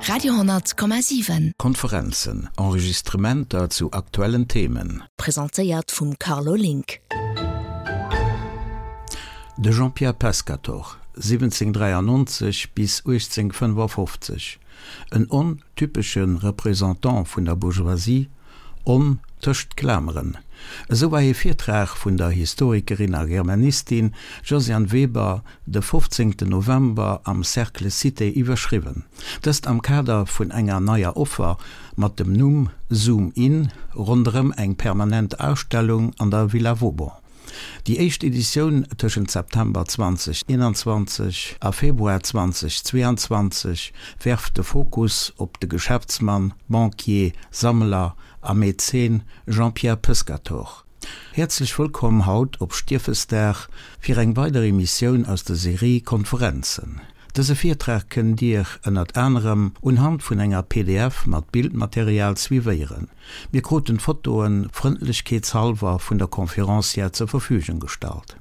Radio,7. Konferenzen, Enregistrementer zu aktuellen Themen. Presentéiert vum Carlo Link. De Jean-Pierre Pescatore, 1793 bis 1855, en on typesche Représentant vun der Bourgeoisie, on tëscht Klameren. Esou war ee Virtrag vun der Historikerin a Germanistin Josiane Weber de 15 November am Cercle Cité iwwerschriwwen. Dëst am Kader vun enger neier Offer mat dem Numm Zoom In ronderëm eng permanent Ausstellung an der Villa Vauban. Déi éischt Editioun tëschent September 2021 a Februar 2022 werft de Fokus op de Geschäftsmann, Banquier, Sammler a Mäzen Jean-Pierre Pescatore. Häerzlech wëllkomm haut op Stiefesdag fir eng weider Emissioun aus der Serie Konferenzen. Dëse Virtrag kënnt Dir ënnert anerem unhand vun enger pdf mat Bildmaterial suivéieren. Mir kruten d'Fotoen frëndlechkeetshalwer vun der Conférencière zur Verfügung gestallt.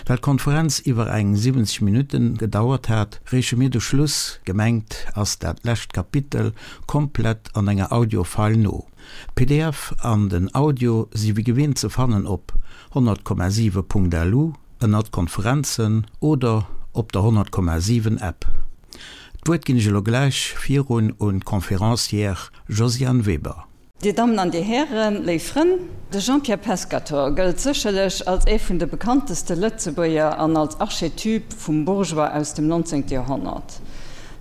Well d'Konferenz iwwer eng 70 Minutten gedauert hat, reeche mir de Schluss, gemengt ass dat lescht Kapitel, komplett an enger Audio-File no. D'PDF an den Audio si wéi gewinnt ze fannen op 100,7.lu ënnert Konferenzen oder op der 100,7 App. D'Wuert ginn ech elo gläich virun un d'Conférencière Josiane Weber. Dir Dammen an Dir Hären, léif Frënn, de Jean-Pierre Pescatore gëllt sécherlech als ee vun de bekannteste Lëtzebuerger an als Archetyp vum Bourgeois aus dem 19. Joerhonnert.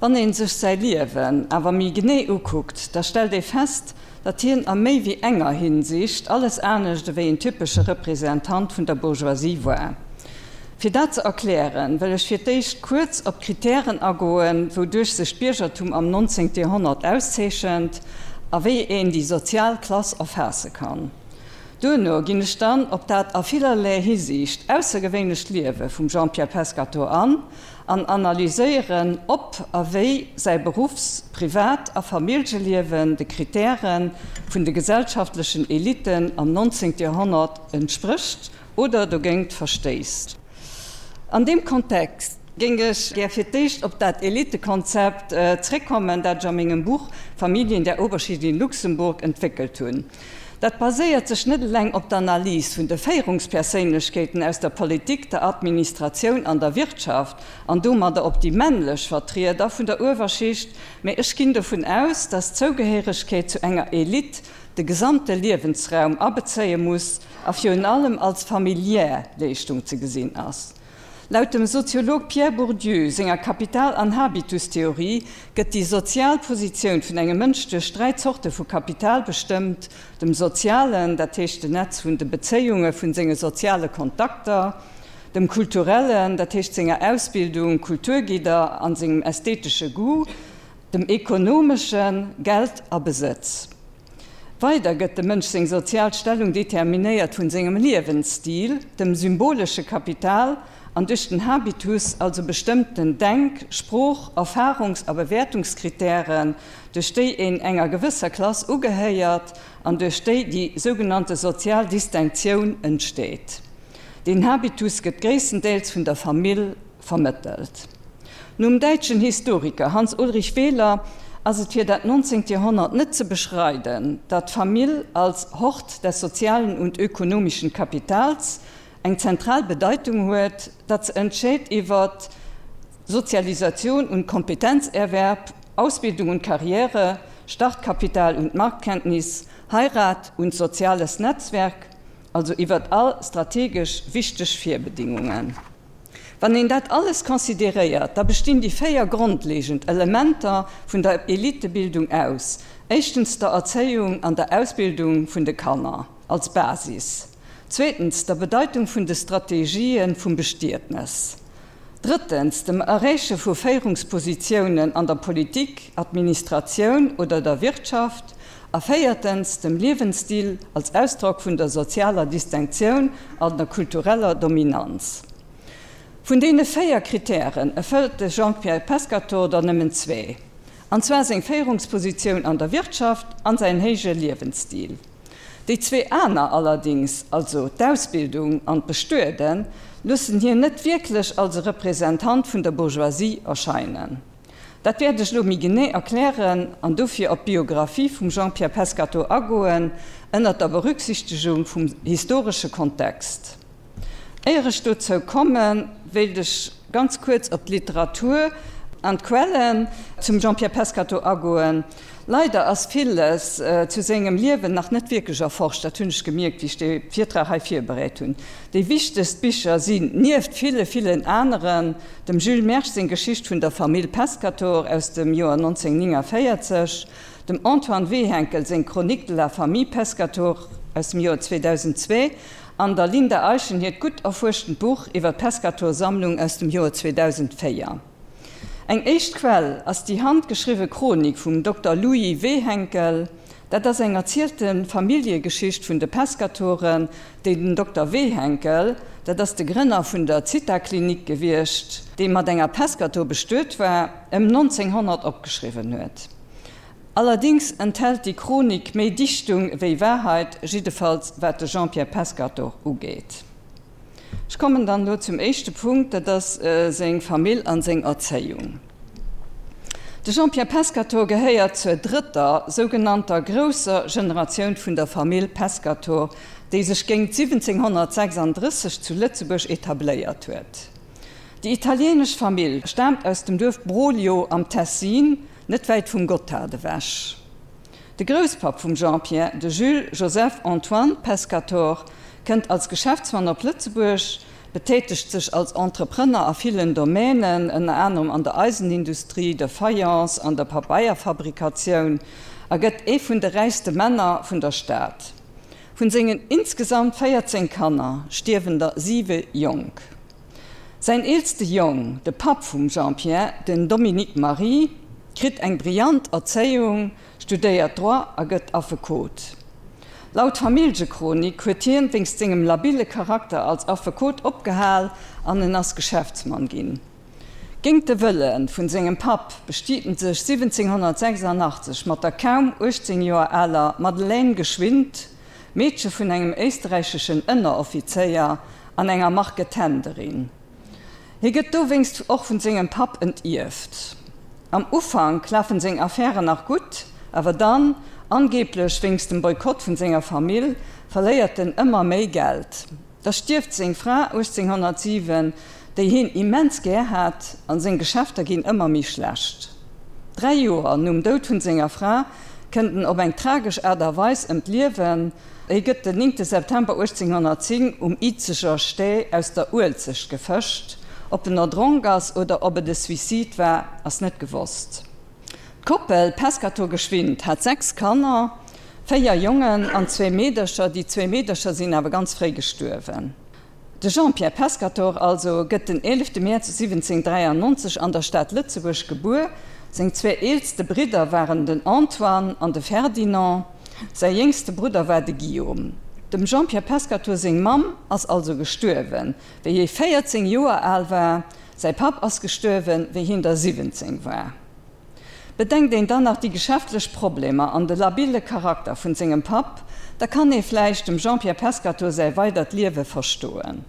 Wann ee sech säi Liewen awer méi genee ukuckt, da stellt ee fest, datt hien a méi wéi enger Hinsicht alles anescht ewéi en typesche Representant vun der Bourgeoisie war. Fir dat ze erklären, wëll ech fir d'éischt kuerz op d'Kritären agoen, wouduerch sech d'Biergertum am 19. Joerhonnert auszeechent a wéi een déi sozial Klass erfaasse kann. Duerno ginn ech dann op dat a villerlee Hisiicht aussergewéinlecht Liewe vum Jean-Pierre Pescatore an an analyséieren, ob a wéi säi Beruffs-, Privat a Familljeliewen de Kritäre vun de gesellschaftlechen Elitten am 19. Joerhonnert entsprécht oder dogéint verstéisst. An deem Kontext géing ech gär fir d'éischt op dat Elitekonzept zréckkommen, dat ech a mengem Buch Familien der Oberschicht in Luxemburg entwéckelt hunn. Dat baséiert sech net eleng op d'Analys vun de Féierungsperséinlechkeeten aus der Politik, der Administratioun an der Wirtschaft an domadder op déi männlech Vertrieder vun der Uewerschicht, mä ech ginn dovun aus, dass d'Zougehéiregkeet zu enger Elite de gesamte Liewensraum abezéie muss a virun allem als familiär Leeschtung ze gesinn ass. Laut dem Soziolog Pierre Bourdieu senger Kapital an Habitustheorie gëtt déi sozial Positioun vun engem Mënsch duerch 3 Zorte vu Kapital bestëmmt, dem sozialen, dat heescht den Netz vun de Bezéiunge vun senge soziale Kontakter, dem kulturellen, dat heescht senger Ausbildung, Kulturgidder an sengem ästhetesche Goût, dem ekonomeschen, Geld a Besëtz. Weider gëtt dem Mënsch seng sozial Stellung determinéiert vun sengem Liewensstil, dem symbolesche Kapital an duerch den Habitus, also bestëmmten Denk-, Sprooch-, Erfarungs a Bewäertungskritären, duerch déi een enger gewësser Klass ugehéiert an duerch déi déi sougenannte sozial Distinctioun entsteet. Deen Habitus gëtt gréisstendeels vun der Famill vermëttelt. Nom däitschen Historiker Hans Ulrich Wehler ass et fir dat 19. Joerhonnert net ze beschreiden, datt d'Famill als Hort des sozialen und ökonomischen Kapitals eng zentral Bedeitung huet, datt se entscheet iwwer Sozialisation und Kompetenzerwerb, Ausbildung und Karriere, Startkapital und Marktkenntnis, Heirat und soziales Netzwerk, also iwwer all strategesch wichteg Virbedingungen. Wann een dat alles consideréiert, da bestinn déi 4 grondlegend Elementer vun der Elitebildung aus, éischtens der Erzéiung an der Ausbildung vun de Kanner als Basis, zweetens der Bedeitung vun de Strategië vum Bestietnes, drëttens dem Erreeche vu Féierungspositiounen an der Politik, Administratioun oder der Wirtschaft a véiertens dem Liewensstil als Ausdrock vun der sozialer Distinctioun an der kultureller Dominanz. Vun deene 4 Kritären erfëllt de Jean-Pierre Pescatore der nëmmen zwee, an zwar seng Féierungspositioun an der Wirtschaft an säin héije Liewensstil. Déi zwee aner allerdings, also d'Ausbildung an d'Bestueden, loossen hien net wierklech als e Representant vun der Bourgeoisie erscheinen. Dat wäert ech elo méi genee erklären an dofir op d'Biographie vum Jean-Pierre Pescatore agoen, ënnert der Berücksichtegung vum historesche Kontext. Éier ech dozou kommen, wéilt ech ganz kuerz op d'Literatur an d'Quellen zum Jean-Pierre Pescatore agoen. Leider ass villes zu sengem Liewen nach net wierklech erforscht, dat hunn ech gemierkt, wéi ech dee Virtrag hei virbereet hunn. Déi wichtegst Bicher sinn, nieft ville, villen aneren, dem Jules Mersch seng Geschicht vun der Famill Pescatore aus dem Joer 1949, dem Antoine Wehenkel seng Chronique de la famille Pescatore aus dem Joer 2002 an der Linda Eischen hiert gutt erfuerschtent Buch iwwer d'Pescatore-Sammlung aus dem Joer 2004. Eng éischt Quell ass déi handgeschriwwe Chronik vum Dokter Louis Wehenkel. Dat ass eng erzielte Familljegeschicht vun de Pescatoren, déi den Dokter Wehenkel, dat ass de Grënner vun der Zitha-Klinik gewiescht, dee mat enger Pescator bestuet war, ëm 1900 opgeschriwwen huet. Allerdings enthält déi Chronik méi Dichtung ewéi Wahrheit, jiddefalls wat de Jean-Pierre Pescatore ugeet. Ech kommen dann elo zum éischte Punkt, dat ass seng Famill an seng Erzéiung. De Jean-Pierre Pescatore gehéiert zur drëtter, sougenannter grousser Generatioun vun der Famill Pescatore, déi sech géingt 1736 zu Lëtzebuerg etabléiert huet. Déi italienesch Famill staamt aus dem Duerf Broglio am Tessin, net wäit vum Gotthard ewech. De Grousspapp vum Jean-Pierre, de Jules Joseph Antoine Pescatore, kënnt als Geschäftsmann op Lëtzebuerg, betätegt sech als Entrepreneur a villen Domänen, ënner anerem an der Eisenindustrie, der Fayence an der Pabeierfabrikatioun, a gëtt ee vun de räichste Männer vun der Stad. Vun sengen insgesamt 14 Kanner stierwen der siwe jonk. Säin eelste Jong, de Papp vum Jean-Pierre, den Dominique Marie, kritt eng brillant Erzéiung, studéiert Droit a gëtt Affekot. Laut Familljechronik huet hien wéinst sengem labile Charakter als Affekot opgehal an en ass Geschäftsmann ginn. Géingt de Wëlle vun sengem Papp bestiet en sech 1786 mat der kaum 18 Joer aler Madeleine Geschwind, Meedche vun engem éisterräicheschen Ënneroffizéier an enger Marketenderin. Hie gëtt dowéinst och vun sengem Papp entierft. Am Ufank lafen seng Affären nach gutt, awer dann, angeeblech wéinst dem Boykott vun senger Famill, verléiert en ëmmer méi Geld. Da stierft seng Fra 1807, déi hien immens gär hat, an seng Geschäfter ginn ëmmer méi schlecht. Dräi Joer nom Doud vun senger Fra kënnt en op eng tragesch Aart a Weis ëm d'Liewen, Hie gëtt den 9 September 1810 um Izeger Stee aus der Uelzecht gefëscht. Ob en erdronk ass oder ob et e Suicide war, ass net gewosst. D'Koppel Pescatore-Geschwind hat 6 Kanner, 4 Jongen an zwee Meedercher. Déi zwee Meedercher sinn awer ganz fréi gestuerwen. De Jean-Pierre Pescatore also gëtt den 11 Mäerz 1793 an der Stad Lëtzebuerg gebuer. Seng zwee eelste Bridder waren den Antoine an de Ferdinand, säi jéngste Brudder war de Guillaume. Dem Jean-Pierre Pescatore seng Mamm ass also gestuerwen, wéi hie 14 Joer al war. Säi Papp ass gestuerwen, wéi hien der 17 war. Bedenkt een dann nach déi geschäftlech Problemer an de labile Charakter vun sengem Papp, da kann ee vläicht dem Jean-Pierre Pescatore säi weidert Liewe verstoen.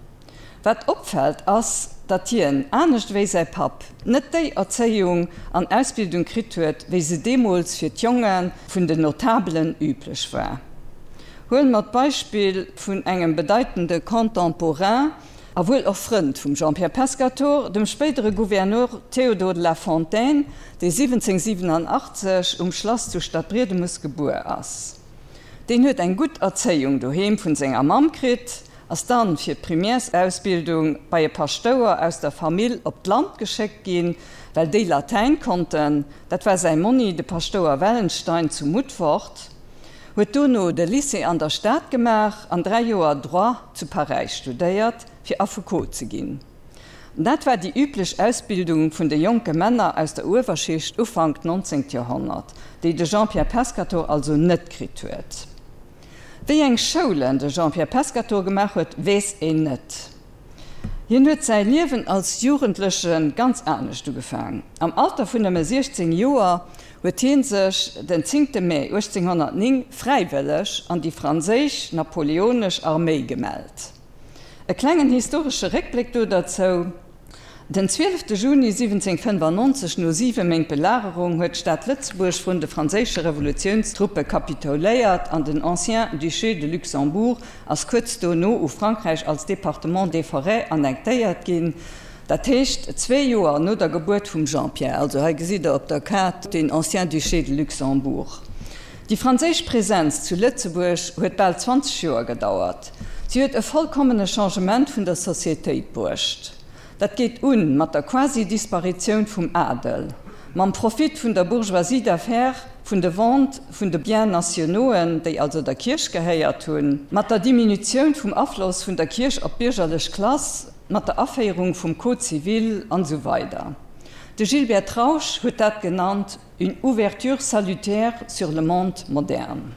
Wat opfält ass, datt hien, anescht ewéi säi Papp, net déi Erzéiung an Ausbildung kritt huet, wéi se deemools fir d'Jonge vun den Notabelen üblech war. Huele mer d'Beispill vun engem bedeitende Contemporain, A wuel och Frënd vum Jean-Pierre Pescatore, dem spéidere Gouverneur Théodore de la Fontaine, dee 1787 um Schlass zu Stadbriedemes gebuer ass. Deen huet eng gutt Erzéiung doheem vun senger Mamm kritt, ass dann fir d'Primärsausbildung bei e Paschtouer aus der Famill op d'Land geschéckt ginn, well déi Latäin konnten, dat war säi Monni, de Paschtouer Wellenstein zu Mutfort. Huet dono de Lycée an der Stad gemaach an 3 Joer Droit zu Paräis studéiert, fir Affekot ze ginn. Dat war déi üblech Ausbildung vun de jonke Männer aus der Uewerschicht Ufank 19. Joerhonnert, déi de Jean-Pierre Pescatore also net kritt huet. Wéi eng Schoulen de Jean-Pierre Pescatore gemaach huet, weess een net. Hien huet säi Liewen als Jugendleche ganz anescht ugefaang. Am Alter vun nëmme 16 Joer huet hie sech den 10 Mee 1809 fräiwëlleg an déi franséisch napoleonesch Arméi gemellt. E klengen historesche Réckbléck do derzou. Den 12 Juni 1795, no siwe Méint Belagerung, huet d'Stad Lëtzebuerg vrun de franséische Revolutiounstruppe kapitouléiert an den Ancien Duché de Luxembourg ass kuerz dono u Frankräich als Département des Forêts annektéiert ginn, dat heescht zwee Joer no der Gebuert vum Jean-Pierre. Also hei gesitt der op der Kaart den Ancien Duché de Luxembourg. Déi franséisch Presenz zu Lëtzebuerg huet bal 20 Joer gedauert. Si huet e vollkommene Changement vun der Societéit bruecht. Dat geet un mat der Quasi-Disparitioun vum Adel, mam Profit vun der Bourgeoisie d'affaires, vun de Vente vun de Biens nationauxen, déi also der Kierch gehéiert hunn, mat der Diminutioun vum Afloss vun der Kierch op d'biergerlech Klass, mat der Aféierung vum Code civil an esou weider. De Gilbert Trausch huet dat genannt une ouverture salutaire sur le monde moderne.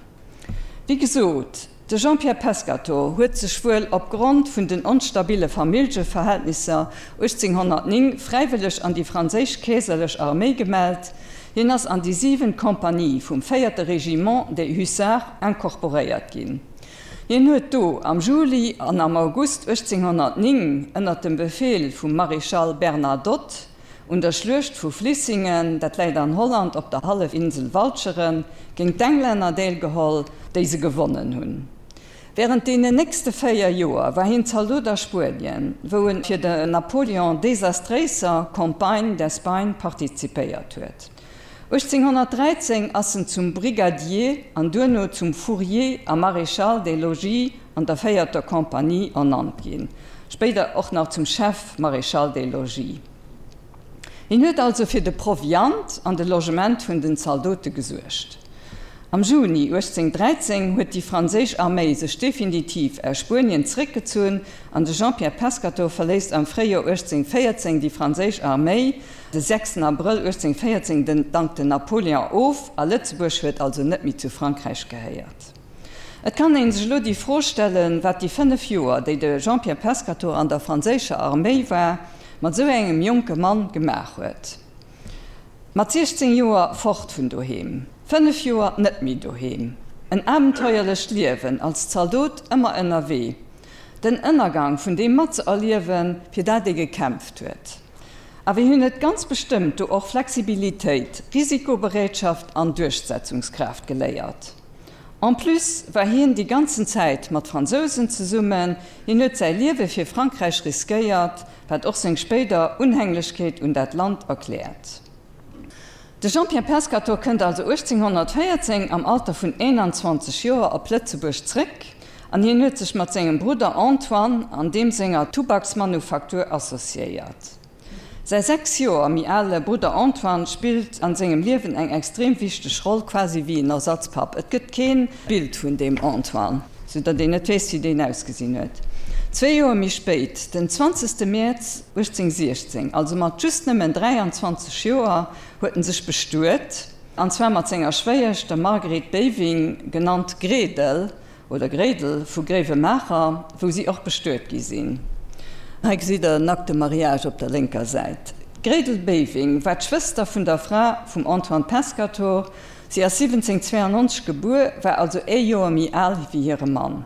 Wéi gesot, de Jean-Pierre Pescatore huet sech wuel opgrond vun den onstabile Familljeverhältnisser 1809 fräiwëlleg an déi franséisch keeserlech Arméi gemellt. Hien ass an déi siwent Kompanie vum véierte Régiment des Hussards incorporéiert ginn. Hien huet do am Juli an am August 1809 ënner dem Befeel vum Maréchal Bernadotte Un der Schluecht vu Vlissingen, dat läit an Holland op der Hallefinsel Walcheren, géint d'Englänner deelgeholl, déi se gewonnen hunn. Wärend deenen nächste 4 Joer war hien Zaldot a Spuenien, wou en fir der Napoleon desastréiser Campagne d'Espagne partizipéiert huet. 1813 ass en zum Brigadier an duerno zum Fourrier a Maréchal des Logis an der véierter Compagnie ernannt ginn, spéider och nach zum Chef Maréchal des Logis. Hien huet also fir de Proviant an de Logement vun den Zaldote gesuergt. Am Juni 1813 huet déi franséisch Arméi sech definitiv aus Spuenien zeréckgezunn an de Jean-Pierre Pescatore verléisst am Fréijoer 1814 déi franséisch Arméi. De 6 Abrëll 1814 den dankt den Napoléon of a Lëtzebuerg huet also net méi zu Frankräich gehéiert. Et kann een sech elo déi Fro stellen, wat déi 5 Joer, déi de Jean-Pierre Pescatore an der franséischer Arméi war, mat esou engem jonke Mann gemaach huet. Mat 16 Joer fort vun doheem, 5 Joer net méi doheem, en abenteuerlecht Liewen als Zaldot, ëmmer ënnerwee, den Ënnergang vun deem matzëerliewen, fir dat ee gekämpft huet. Awer hien huet ganz bestëmmt do och Flexibilitéit, Risikobereetschaft an Duerchsetzungskraaft geléiert. En plus war hien déi ganzen Zäit mat Fransousen zesummen, hien huet säi Liewe fir Frankräich riskéiert, wat och seng spéider Unhänglechkeet un dat Land erkläert. De Jean-Pierre Pescatore kënnt also 1814 am Alter vun 21 Joer op Lëtzebuerg zréck an hien huet sech mat sengem Brudder Antoine an deem senger Tubaksmanufaktur associéiert. Säi 6 Joer méi ale Brudder Antoine spillt an sengem Liewen eng extrem wichteg Roll, quasi wéi en Ersatzpapp. Et gëtt keen Bild vun deem Antoine, sou datt een net weess wéi deen ausgesinn huet. Zwee Joer méi spéit, den 20 Mäerz 1816, also mat just nëmmen 23 Joer, huet en sech bestuet, an zwar mat senger Schwéiesch, der Marguerite Beving, genannt Gredel, oder Gréidel vu Gréiwemaacher, wou si och bestuet gi sinn. Hei gesitt der en Acte de mariage op der lénker Säit. D'Gréidel Beving war d'Schwëster vun der Fra vum Antoine Pescatore. Si ass 1792 gebuer, war also ee Joer méi al wéi hire Mann.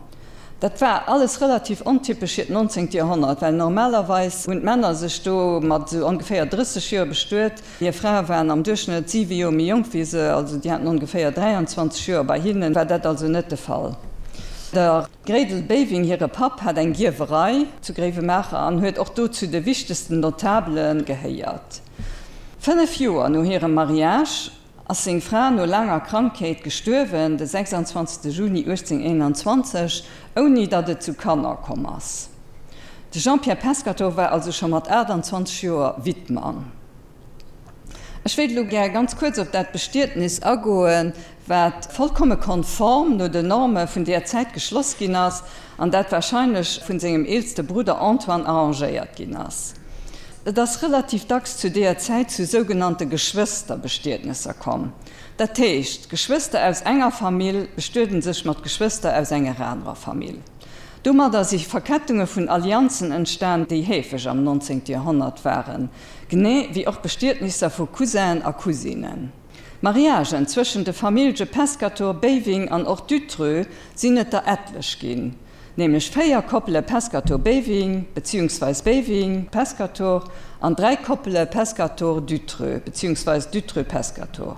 Dat war alles relativ ontypesch fir d'nonzéngt Joerhonnert, well normalerweis hunn d'Männer sech do mat esou ongeféier 30 Joer bestuet. Hir Frae waren am Duerchschnëtt siwe Joer méi jonk wéi se, also déi haten ongeféier 23 Joer. Bei hinne war dat also net de Fall. Der Gréidel Beving hire Papp hat eng Gierwerei zu Gréiwemaacher an huet och do zu de wichtegsten Notabele gehéiert. Fënnef Joer no hirem Mariage ass seng Fra no laanger Krankheet gestuerwen, de 26 Juni 1821, ouni datt et zu Kanner komm ass. De Jean-Pierre Pescatore war also scho mat 28 Joer Wittmann. Ech wéilt elo gär ganz kuerz op dat Bestietnis agoen, wat vollkomme konform no den Norme vun deer Zäit geschloss ginn ass an dat wahrscheinlech vun sengem eelste Brudder Antoine arrangéiert ginn ass. Et ass relativ dacks zu deeër Zäit zu sougenannte Geschwësterbestietnesser komm. Dat heescht, Geschwëster aus enger Famill bestueden sech mat Geschwëster aus enger anerer Famill. Domadder si Verkettunge vun Allianzen entstan, déi heefeg am 19. Joerhonnert waren, genee wéi och Bestietnisser vu Cousinen a Cousinen. Mariagen zwëschen de Famillje Pescatore, Beving an och Dutreux sinn et der etlech ginn. Nämlech 4 Koppele Pescator-Beving beziehungsweis Beving-Pescator an 3 Koppele Pescator-Dutreux beziehungsweis Dutreux-Pescator.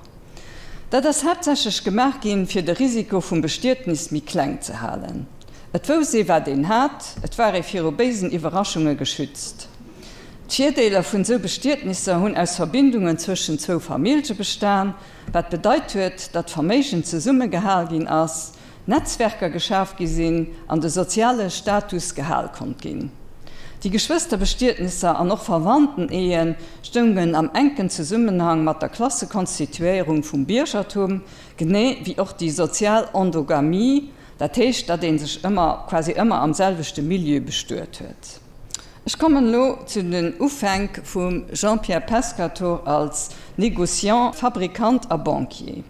Dat ass haaptsächlech gemaach ginn, fir de Risiko vum Bestietnis méi kleng ze halen. Et wouss ee wat een hat, et war ee viru béisen Iwwerraschunge geschützt. D'Virdeeler vun sou Bestietnisser hunn aus Verbindungen zwëschen zwou Famillje bestan, wat bedeit huet, datt Verméigen zesummegehal ginn ass, Netzwerker geschaf gi sinn an de soziale Status gehal konnt ginn. Déi Geschwësterbestietnisser an och Verwandteneeë stoungen am enken Zesummenhang mat der Klassekonstituéierung vum Biergertum, genee wéi och déi sozial Endogamie, dat heescht, datt ee sech ëmmer, quasi ëmmer am selwechte Milieu bestuet huet. Ech kommen elo zu den Ufänk vum Jean-Pierre Pescatore als Négociant, Fabrikant a Banquier.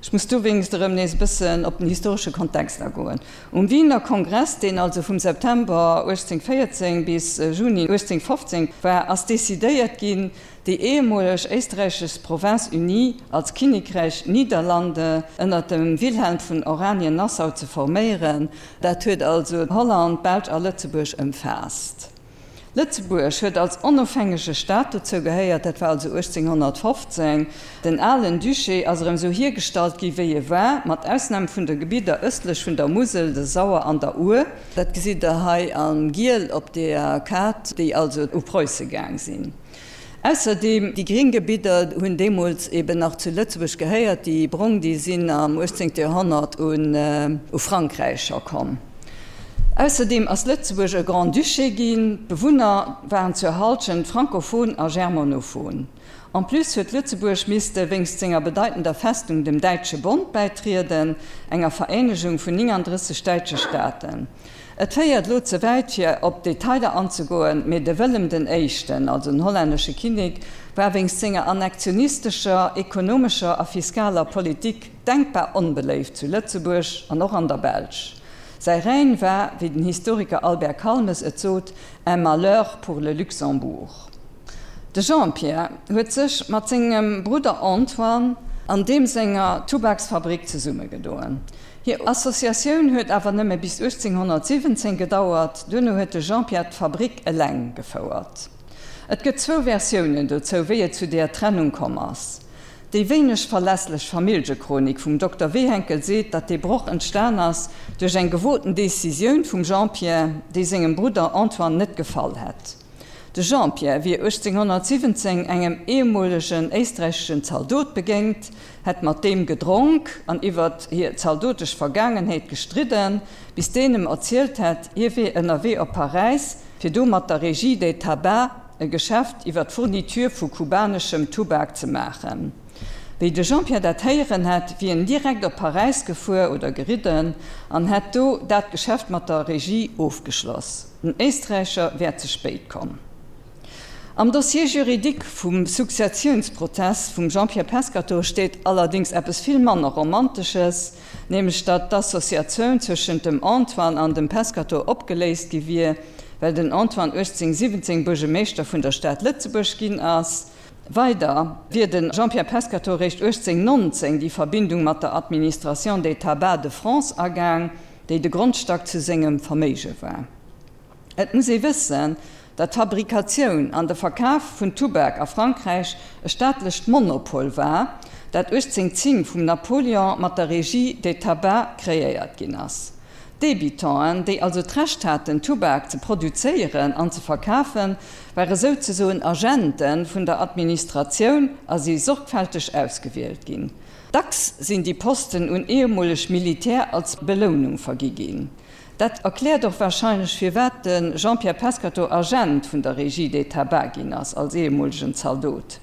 Ech muss dowéinst erëm nees e bëssen op den historesche Kontext agoen. Um Wiener Kongress, deen also vum September 1814 bis Juni 1815 war, ass decidéiert ginn, déi ehemoleg éisträichesch Province Unie als Kinnekräich Niederlande ënner dem Wilhelm vun Oranien-Nassau ze forméieren. Dat huet also Holland, d'Belsch a Lëtzebuerg ëmfaasst. Lëtzebuerg huet als onofhängege Staat dozou gehéiert, dat war also 1815. Den alen Duché ass erëm esou hiergestallt gi wéi e war, mat Ausnam vun de Gebidder ëstlech vun der Musel, der Sauer an der Our. Dat gesitt der hei a giel op der Kaart, déi also u Preusse gaang sinn. Ausserdeem, déi gring Gebidder hunn deemools eben nach zu Lëtzebuerg gehéiert, déi brong, déi sinn am 18. Joerhonnert u Frankräich scho komm. Ausserdeem ass Lëtzebuerg e Grand-Duché ginn, d'Bewunner waren zur Halschent frankophon a germanophon. En plus huet Lëtzebuerg misste wéinst senger bedeitender Festung dem Däitsche Bond bäitrieden, enger Vereenegung vun 39 däitsche Staaten. Et féiert elo ze wäit fir op d'Detailer anzegoen, mee de Wëllem den Éischten, also den hollännesche Kinnek, war wéinst senger annektionistescher, ekonomescher a fiskaler Politik denkbar onbeléift zu Lëtzebuerg an och an der Belsch. Säi Règne war, wéi den Historiker Albert Calmes et sot, un malheur pour le Luxembourg. De Jean-Pierre huet sech mat sengem Brudder Antoine an deem senger Tubaksfabrik zesummegedoen. Hir Associatioun huet awer nëmme bis 1817 gedauert, duerno huet de Jean-Pierre d'Fabrik eleng gefouert. Et gëtt zwou Versiounen dozou, wéi et zu deeër Trennung komm ass. Déi wéineg verlässlech Familljechronik vum Dokter Wehenkel seet, datt dee Broch entstan ass duerch eng gewoten Decisioun vum Jean-Pierre, déi sengem Brudder Antoine net gefall hätt. De Jean-Pierre wier 1817 engem ehemolegen éisträicheschen Zaldot begéint, hätt mat deem gedronk an iwwert hir zaldotesch Vergaangenheet gestridden, bis deen em erzielt hätt, hie wier ënnerwee op Paräis, fir do mat der Régie des Tabacs e Geschäft iwwer d'Fourniture vu kubaneschem Tubak ze maachen. Wéi de Jean-Pierre dat héieren hätt, wier en direkt op Paräis gefuer oder geridden an hätt do dat Geschäft mat der Régie ofgeschloss. Den Éisträicher wär ze spéit komm. Am Dossier juridique vum Successiounsprozess vum Jean-Pierre Pescatore steet allerdéngs eppes vill manner Romantesches, nämlech datt d'Associatioun zwëschent dem Antoine an dem Pescatore opgeléist gi wier, well den Antoine 1817 Buergemeeschter vun der Stad Lëtzebuerg ginn ass. Weider wier de Jean-Pierre Pescatore réischt 1819 déi Verbindung mat der Administration des Tabacs de France agaang, déi de Grondstack zu sengem Verméige war. Et muss ee wëssen, datt d'Fabrikatioun an de Verkaf vun Tubak a Frankräich e staatlecht Monopol war, dat 1810 vum Napoleon mat der Régie des Tabacs kreéiert ginn ass. D'Débitanten, déi also d'Recht haten, Tubak ze produzéieren an ze verkafen, ware souzesoen Agente vun der Administratioun a si sorgfälteg ausgewielt ginn. Dacks sinn déi Posten un ehemoleg Militär als Belounung vergi ginn. Dat erkläert och warscheinlech firwat de Jean-Pierre Pescatore Agent vun der Régie des Tabacs ginn ass, als ehemolegen Zaldot.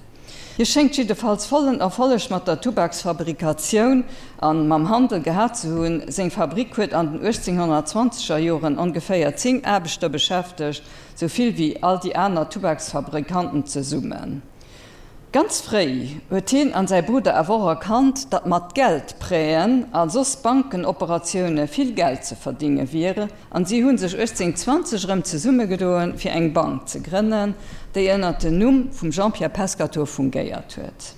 Hie schéngt jiddefalls vollen Erfolleg mat der Tubaksfabrikatioun a mam Handel gehat ze hunn. Seng Fabrik huet an den 1820 er Joren ongeféier 10 Aarbechter beschäftegt, sou vill wéi all déi aner Tubaksfabrikanten zesummen. Ganz fréi huet hien an säi Brudder awer och erkannt, datt mat Geldprêten a soss Bankenoperatioune vill Geld ze verdinge wier, an si hu sech 1820 erëm zesummegedoen, fir eng Bank ze grënnen, déi ënner den Numm vum Jean-Pierre Pescatore fungéiert huet.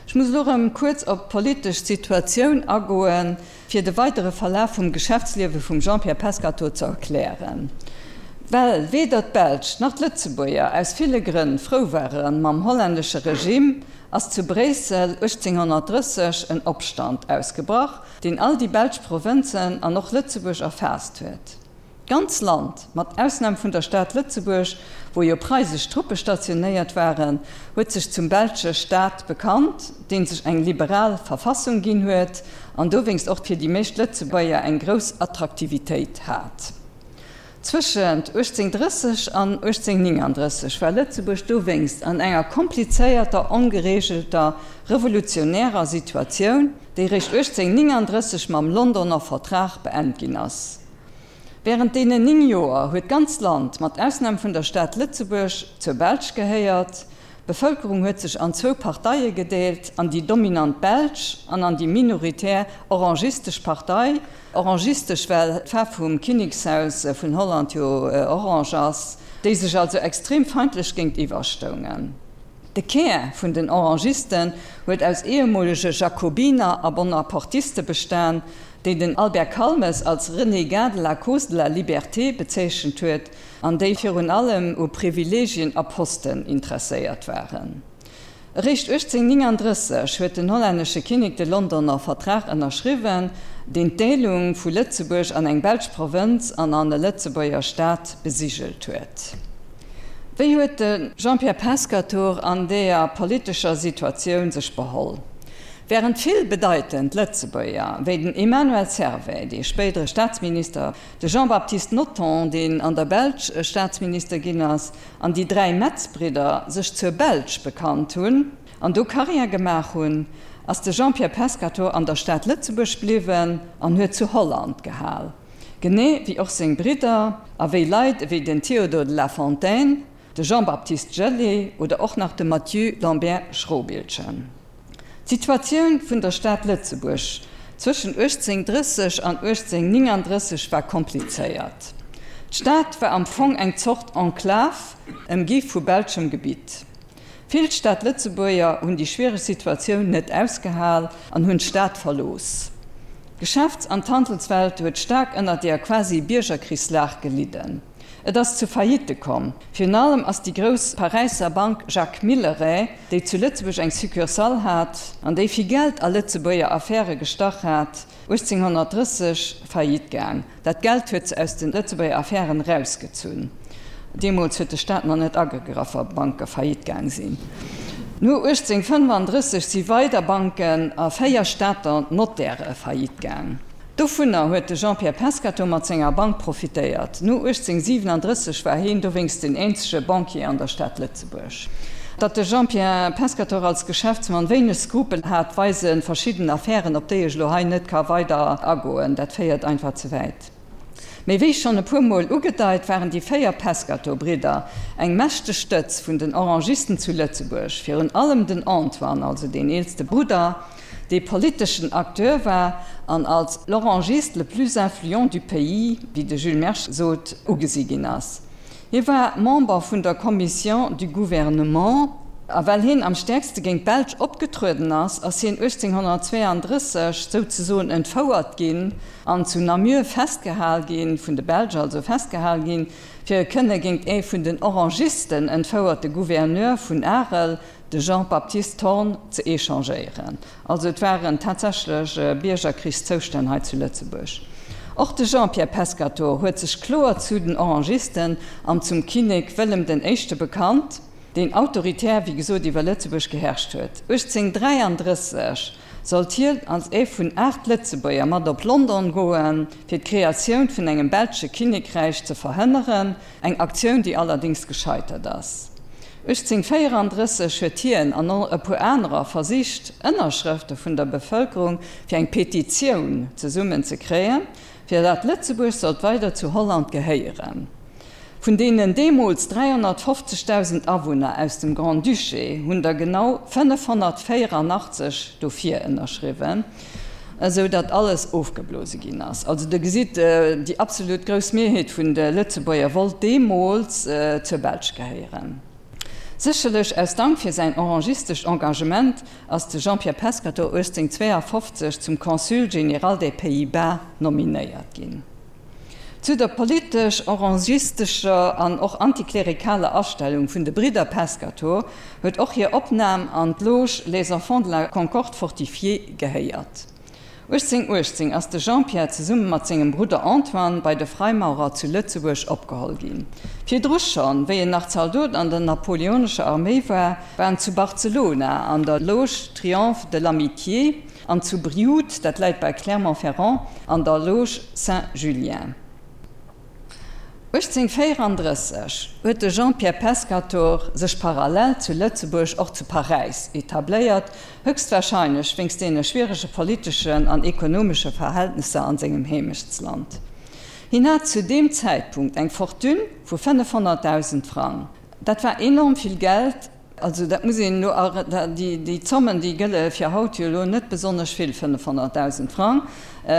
Ech muss elo erëm kuerz op d'politesch Situatioun agoen, fir de weidere Verlaf vum Geschäftsliewe vum Jean-Pierre Pescatore ze erklären. Well weder d'Belsch nach d'Lëtzebuerger aus ville Grënn frou ware mam hollännesche Regime, ass zu Bréissel 1830 en Opstand ausgebrach, deen all déi belsch Provënzen an och Lëtzebuerg erfaasst huet. D'ganz Land, mat Ausnam vun der Stad Lëtzebuerg, wou jo preisesch Truppe stationéiert waren, huet sech zum belsche Staat bekannt, dee sech eng liberal Verfassung ginn huet an dowéinst och fir déi meescht Lëtzebuerger eng grouss Attraktivitéit hat. Zwëschent 1830 an 1839 war Lëtzebuerg dowéinst an enger komplizéierter, ongereegelter, revolutionärer Situatioun, déi réischt 1839 mam Londoner Vertrag beent ginn ass. Wärend deenen 9 Joer huet d'ganz Land, mat Ausnam vun der Stad Lëtzebuerg, zur Belsch gehéiert. D'Bevëlkerung huet sech an zwou Parteie gedeelt, an déi dominant belsch an an déi minoritär orangistesch Partei. Orangistesch, well d'Faarf vum Kinnekshaus vun Holland jo orange ass, déi sech also extrem feindlech géintiwwer stoungen. De Kär vun den Orangisten huet aus ehemolege Jakobiner a Bonapartiste bestan, déi den Albert Calmes als Renégat de la cause de la liberté bezeechent huet an déi virun allem u Privilegien a Posten interesséiert waren. Eréischt 1839 huet den hollännesche Kinnek de Londoner Vertrag ënnerschriwwen, deen d'Deelung vu Lëtzebuerg an eng belsch Provënz an an e Lëtzebuerger Staat besigelt huet. Wéi huet de Jean-Pierre Pescatore an deeër politescher Situatioun sech beholl? Wärend vill bedeitend Lëtzebuerger, wéi den Emmanuel Servais, dee spéidere Staatsminister, de Jean-Baptiste Nothomb, deen an der Belsch Staatsminister ginn ass, an déi dräi Metz-Bridder sech zur Belsch bekannt hunn an do Karriär gemaach hunn, ass de Jean-Pierre Pescatore an der Stad Lëtzebuerg bliwwen an huet zu Holland gehal, genee wéi och seng Bridder a wéi Leit ewéi den Théodore de la Fontaine, de Jean-Baptiste Gellé oder och nach de Mathieu Lambert Schrobiltgen. D'Situatioun vun der Stad Lëtzebuerg zwëschen 1830 an 1839 war komplizéiert. D'Stad war am Fong eng Zort Enclave, ëmgi vu belschem Gebitt. Vill Stad-Lëtzebuerger hunn déi schwiereg Situatioun net ausgehal an hunn d'Stad verlooss. D'Geschäfts an d'Handelswelt huet staark ënner deer quasi Biergerkrichslag gelidden. Et ass zu Faillitte komm. Virun allem ass déi grouss Paräisser Bank Jacques Milleret, déi zu Lëtzebuerg eng Succursale hat an déi vill Geld a Lëtzebuerger Affäre gestach hat, 1830 faillite gaang. Dat Geld huet se aus de Lëtzebuerger Affären erausgezunn. Deemools huet de Staat nach net agegraff, wa Banke faillite gaang sinn. No 1835 si weider Banken a 4 Stater Nottäre faillite gaang. Dovunner huet de Jean-Pierre Pescatore mat senger Bank profitéiert. No 1837 war heen dowéinst den eenzege Banquier an der Stad Lëtzebuerg. Datt de Jean-Pierre Pescatore als Geschäftsmann wéineg Skrupel hat, weise verschidden Affären, op déi ech elo hei net ka weider agoen. Dat féiert einfach ze wäit. Mee wéi schonn e puer Mol ugedeit, waren déi 4 Pescatore-Bridder eng mächteg Stëtz vun den Orangisten zu Lëtzebuerg, virun allem den Antoine, also deen eelste Brudder, dee politeschen Acteur war an als l'Orangiste le plus influent du pays, wéi de Jules Mersch sot, ugesi ginn ass. Hie war Member vun der Commission du Gouvernement a well hien am stäerkste géint d'Belsch opgetrueden ass, ass hien 1832 souzesoen entfouert ginn an zu Namur festgehal ginn, vun de Belsch also festgehal ginn, fir e kënne géint ee vun den Orangisten entfouerte Gouverneur vun Arel, de Jean-Baptiste Thorn, ze échangéieren. Also et waren tatsächlech Biergerkrichszoustänn hei zu Lëtzebuerg. Och de Jean-Pierre Pescatore huet sech kloer zu den Orangisten an zum Kinnek Wëllem den Éischte bekannt, deen autoritär, wéi gesot, iwwer Lëtzebuerg geherrscht huet. 1833 sollt hien als ee vun 8 Lëtzebuerger mat op London goen, fir d'Kreatioun vun engem belsche Kinnekräich ze verhënneren, eng Aktioun, déi allerdéngs gescheitert ass. 1834 huet hien an och e puer anerer versicht, Ënnerschrëfte vun der Bevëlkerung fir eng Petitioun zesummen ze kréien, fir dat Lëtzebuerg sollt weider zu Holland gehéieren. Vun deenen deemools 350.000 Awunner aus dem Grand-Duché hunn der genau 584 dofir ënnerschriwwen, esou datt alles ofgeblose ginn ass. Also der gesitt, déi absolut grouss Mierheet vun de Lëtzebuerger wollt deemools zur Belsch gehéieren. Sécherlech aus Dank fir säin orangistescht Engagement ass de Jean-Pierre Pescatore 1852 zum Consul général des Pays-Bas nominéiert ginn. Zu der politesch-orangistescher an och antiklerikaler Astellung vun de Bridder Pescatore huet och hir Opnam an d'Loge Les Enfants de la Concorde fortifiée gehéiert. 1818 ass de Jean-Pierre zesumme mat sengem Brudder Antoine bei de Freimaurer zu Lëtzebuerg opgeholl ginn. Virdru schonn, wéi en nach Zaldot an der napoleonescher Arméi war, war en zu Barcelona an der Loge Triomphe de l'Amitié an zu Brioude, dat läit bei Clermont-Ferrand, an der Loge Saint-Julien. 1834 huet de Jean-Pierre Pescatore sech parallel zu Lëtzebuerg och zu Paräis etabléiert, höchstwahrscheinlech wéinst deene schwierege politeschen an ekonomesche Verhältnesser an sengem Heemechtsland. Hien hat zu deem Zäitpunkt eng Fortune vu 500.000 Frang. Dat war enorm vill Geld. Also dat muss een elo, déi Zommen, déi gëlle fir haut jo elo net besonnesch vill, 500.000 Frang,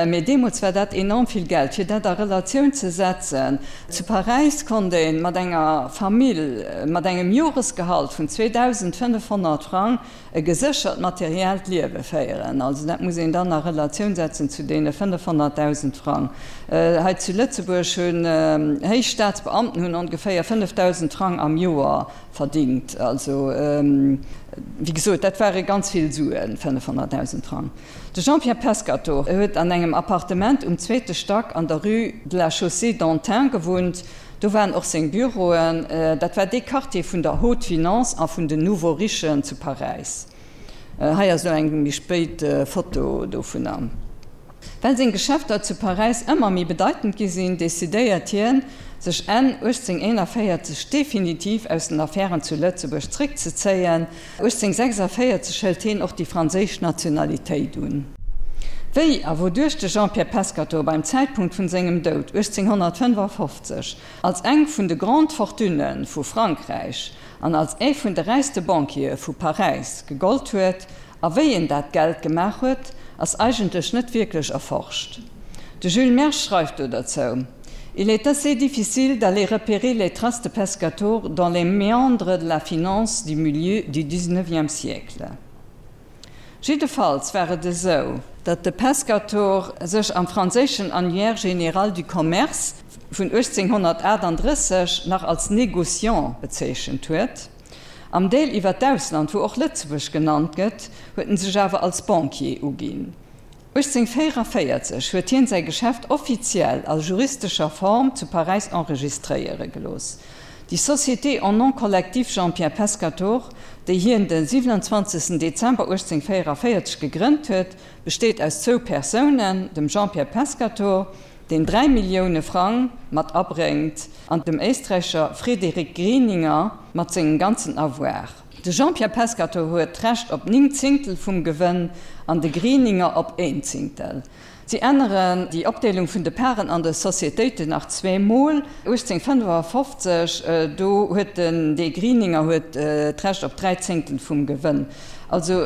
mee deemools war dat enorm vill Geld. Fir dat a Relatioun ze setzen, Zu Paräis konnt ee mat enger Famill mat engem Joresgehalt vun 2.500 Frang e geséchert materiellt Liewe féieren. Also dat muss een dann a Relatioun setzen zu deene 500.000 Frang. Hei zu Lëtzebuerg hunn héich Staatsbeamten hunn ongeféier 5.000 Frang am Joer verdingt. Also, wéi gesot, dat ware ganz vill Suen, 500.000 Frang. De Jean-Pierre Pescatore huet an engem Appartement um zweete Stack an der Rue de la Chaussée d'Antin gewunnt. Do waren och seng Büroen. Dat war dee Quartier vun der Haute Finance a vun den Nouveaux Richen zu Paräis. Hei ass elo eng méi spéit Foto dovunner. Well seng Geschäfter zu Paräis ëmmer méi bedeitend gi sinn, decidéiert hien, sech Enn 1841 definitiv aus den Affären zu Lëtzebuerg zréckzezéien. 1846 hëlt hien och déi franséisch Nationalitéit un. Wéi a wouduerch de Jean-Pierre Pescatore beim Zäitpunkt vun sengem Doud 1855 als eng vun de Grandes Fortunen vu Frankräich an als ee vun de räichste Banquiere vu Paräis gegollt huet, A wéi en dat Geld gemaach huet, ass eigentlech net wierklech erforscht. De Jules Mersch schreift do derzou, Il est assez difficile d'aller repérer les traces de Pescatore dans les méandres de la finance du milieu du XIXe siècle. Jiddefalls war et esou, datt de Pescatore sech am franséischen Annuaire général du commerce vun 1838 nach als Négociant bezeechent huet. Am Deel iwwer d'Ausland, wou och Lëtzebuerg genannt gëtt, huet en sech awer als Banquier uginn. 1844 huet hien säi Geschäft offiziell a juristescher Form zu Paräis enregistréiere gelooss. Déi Société en nom collectif Jean-Pierre Pescatore, déi hien de 27 Dezember 1844 gegrënnt huet, besteet aus zwou Persounen, dem Jean-Pierre Pescatore, deen 3 Millioune Frang mat abréngt, an dem Éisträicher Frédéric Grieninger mat sengem ganzen Avoir. De Jean-Pierre Pescatore huet d'Recht op 9 Zéngtel vum Gewënn an de Grieninger op een Zéngtel. Si änneren déi Opdeelung vun de Paren an de Societéiten nach zweemol. 1855, do huet den de Grieninger huet d'Recht op 3 Zéngtel vum Gewënn. Also,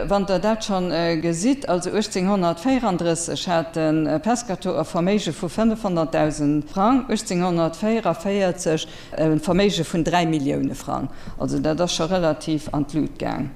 wann Der dat schonn gesitt, also 1834 hat de Pescatore e Verméige vu 500.000 Frang, 1844 e Verméige vun 3 Millioune Frang. Also dat ass scho relativ an d'Lut gaang.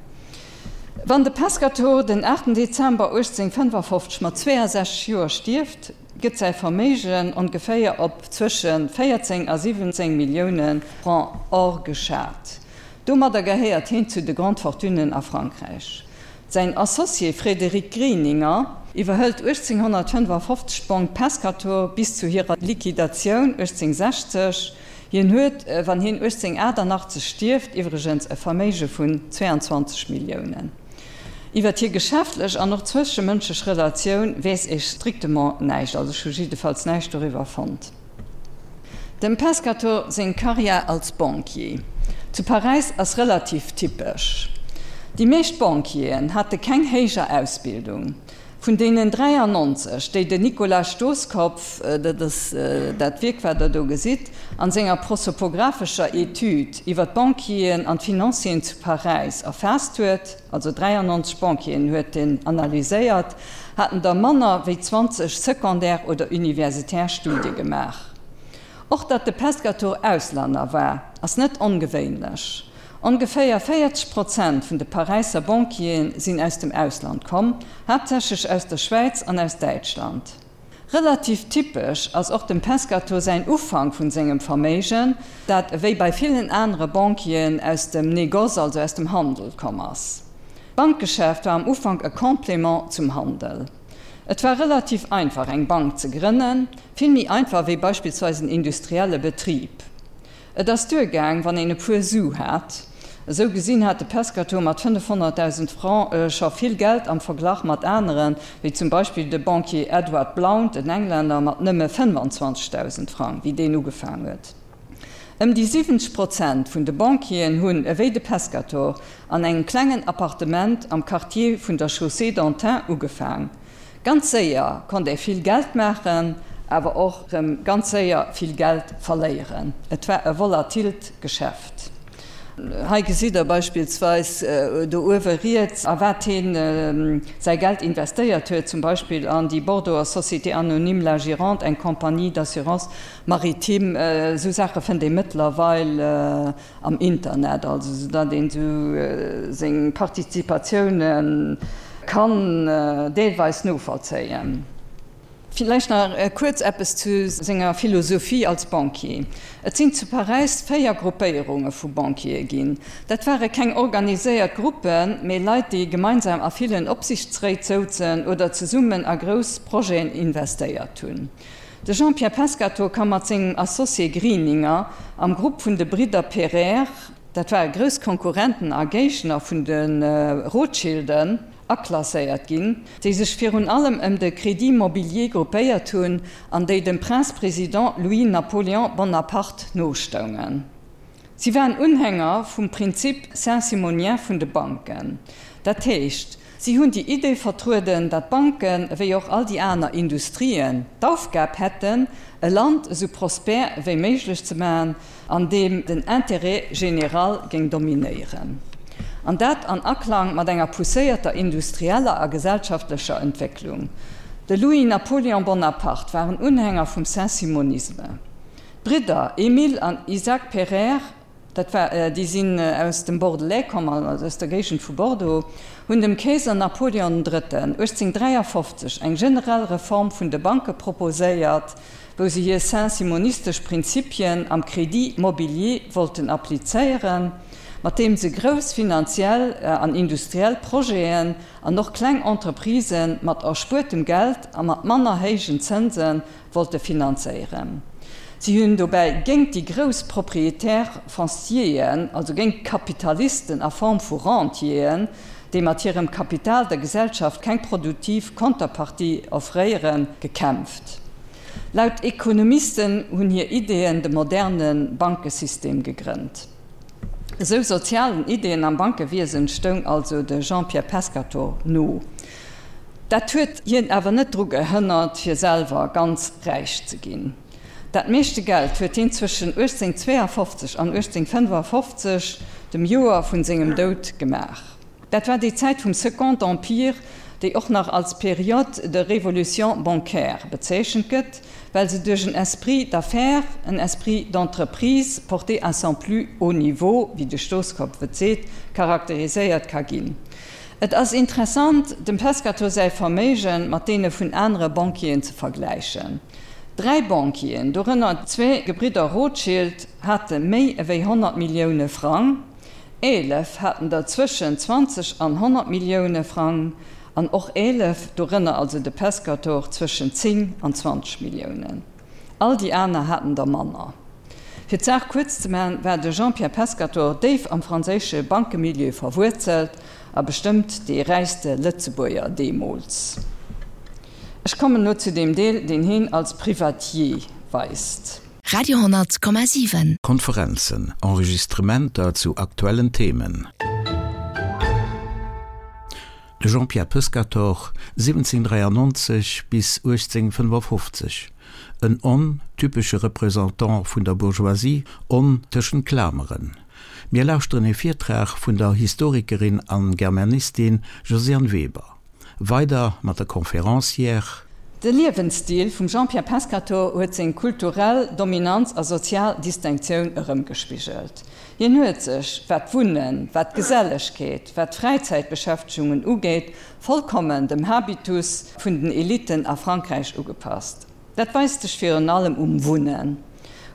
Wann de Pescatore den 8 Dezember 1855 mat 62 Joer stierft, gëtt säi Verméigen ongeféier op zwësche 14 a 17 Millioune Francs or geschat. Domadder gehéiert heen zu de Grandes Fortunen a Frankräich. Säin Associé Frédéric Grieninger iwwerhëlt 1855 d'Banque Pescatore bis zu hirer Liquidatioun 1860. Hien huet, wann hien 1888 stierft, iwwregens e Verméige vun 22 Milliounen. Iwwer hir geschäftlech an och zwëschemënschlech Relatioun weess ee strictement näischt, also ech hu jiddefalls näischt doriwwer fonnt. Dem Pescatore seng Karriär als Banquier zu Paräis ass relativ typesch. Déi meescht Banquieren hate keng héijer Ausbildung. Vun deenen 93, déi den Nicolas Stoskopf, dat ass dat Wierk wat der do gesitt, an senger prosopographescher Etüd iwwer d'Banquieren an d'Financieren zu Paräis erfaasst huet, also 93 Banquieren huet en analyséiert, haten der manner wéi 20 secondaire oder universitär Studie gemaach. Och datt de Pescatore Auslänner war, ass net ongewéinlech. Ongeféier 40 Prozent vun de Paräisser Banquiere sinn aus dem Ausland komm, haaptsächlech aus der Schwäiz an aus Däitschland. Relativ typesch ass och dem Pescator säin Ufank vun sengem Verméigen, dat ewéi bei villen anere Banquieren aus dem Négoce, also aus dem Handel komm ass. D'Bankgeschäft war am Ufank e Complément zum Handel. Et war relativ einfach eng Bank ze grënnen, vill méi einfach wéi beispillsweis en industrielle Betrib. Et ass duergaang, wann een e puer Su hat. Esou gesinn hat de Pescator mat 500.000 Francs scho vill Geld am Verglach mat aneren, wéi zum Beispill de Banquier Edward Blount, en Englänner, mat nëmme 25.000 Francs, wéi deen ugefaang huet. Ëm déi 70 Prozent vun de Banquieren hunn, ewéi de Pescator, an engem klengen Appartement am Quartier vun der Chaussée d'Antin ugefaang. Ganz séier konnt ee vill Geld maachen, awer och rëm ganz séier vill Geld verléieren. Et war e volatilt Geschäft. Hei gesitt der beispillsweis do uewe riets, a wat hien säi Geld investéiert huet, zum Beispill an déi Bordeauxer Société Anonyme La Gironde, eng Compagnie d'assurance maritime. Esou Saache fënnt ee mëttlerweil am Internet, also sou datt een sou seng Participatioune kann deelweis novollzéien. Villäicht nach kuerz eppes zu senger Philosophie als Banquier. Et sinn zu Paräis 4 Gruppéierunge vu Banquiere ginn. Dat ware keng organiséiert Gruppen, mee Leit, déi gemeinsam a villen Opsichtsréit souzen oder zesummen a grouss Projeten investéiert hunn. De Jean-Pierre Pescatore ka mat sengem Associé Grieninger am Grupp vun de Bridder Pereire, dat ware grouss Konkurrenten a Géigner vun de Rothschilden, aklasséiert ginn, déi sech virun allem ëm de Crédit Mobilier gruppéiert hunn an déi dem Prince-Président Louis-Napoléon Bonaparte nostoungen. Si waren Unhänger vum Prinzip saint-simonien vun de Banken, dat heescht, Si hunn déi Idee vertrueden, datt d'Banken, ewéi och all déi aner Industrien, d'Aufgab hätten, e Land esou prospère ewéi méiglech ze maachen, an deem den Intérêt général géing dominéieren. An dat an Aklang mat enger pousséierter industrieller a gesellschaftlecher Entwécklung. De Louis-Napoléon Bonaparte war en Unhänger vum Saint-Simonisme. D'Bridder Émile an Isaac Pereire, dat war, déi sinn aus dem Bordelais komm, also aus der Géigend vu Bordeaux, hunn dem Keeser Napoleon den Drëtten 1853 eng generell Reform vun de Banke proposéiert, wou se hir saint-simonistesch Prinzipien am Crédit mobilier wollten applizéieren, mat deem se grouss finanziell an industriell Projeten an och kleng Entreprisë mat erspuertem Geld a mat manner héijen Zënse wollte finanzéieren. Si hunn dobäi géint déi grouss Propriétaires foncieren, also géint d'Kapitalisten a Form vu Rentieren, déi mat hirem Kapital der Gesellschaft keng produktiv Konterpartie offréieren, gekämpft. Laut Ekonomisten hunn hir Ideeën de moderne Bankesystem gegrënnt. Esou sozialen Ideeën am Bankewiesen stoung also de Jean-Pierre Pescatore no. Dat huet hien awer net dru gehënnert, fir selwer ganz räich ze ginn. Dat meeschte Geld huet hien zwëschen 1852 an 1855, dem Joer vun sengem Doud, gemaach. Dat war déi Zäit vum Second Empire, déi och nach als Période de révolution bancaire bezeechent gëtt, well se duerch en Esprit d'affaires, en esprit d'entreprise porté à son plus haut niveau, wéi de Stoskopf et seet, charakteriséiert ka ginn. Et ass interessant, dem Pescatore säi Verméige mat deene vun anere Banquieren ze vergläichen. Dräi Banquieren, dorënner zwee Gebridder Rothschild, hate méi ewéi 100 Millioune Frang, 11 haten der zwëschen 20 an 100 Millioune Frang an och 11, dorënner also de Pescatore, zwëschen 10 an 20 Milliounen. All déi aner haten der manner. Fir d'Saach kuerz ze maachen, war de Jean-Pierre Pescatore déif am franséische Bankemilieu verwuerzelt a bestëmmt dee räichste Lëtzebuerger deemools. Ech kommen elo zu deem Deel, deen heen als Privatier weist. Radio 10,7. Konferenzen, Enregistrementer zu aktuellen Themen. De Jean-Pierre Pescatore, 1793 bis 1855, en on typesche Représentant vun der Bourgeoisie, on tëschent Klameren. Mir lauschteren e Virtrag vun der Historikerin an Germanistin Josiane Weber. Weider mat der Conférencière. De Liewensstil vum Jean-Pierre Pescatore huet seng kulturell Dominanz a sozial Distinctioun erëmgespigelt. Hien huet sech, wat d'Wunnen, wat d'Gesellegkeet, wat d'Fräizäitbeschäftegungen ugeet, vollkommen dem Habitus vun den Eliten a Frankräich ugepasst. Dat weist sech virun allem um Wunnen.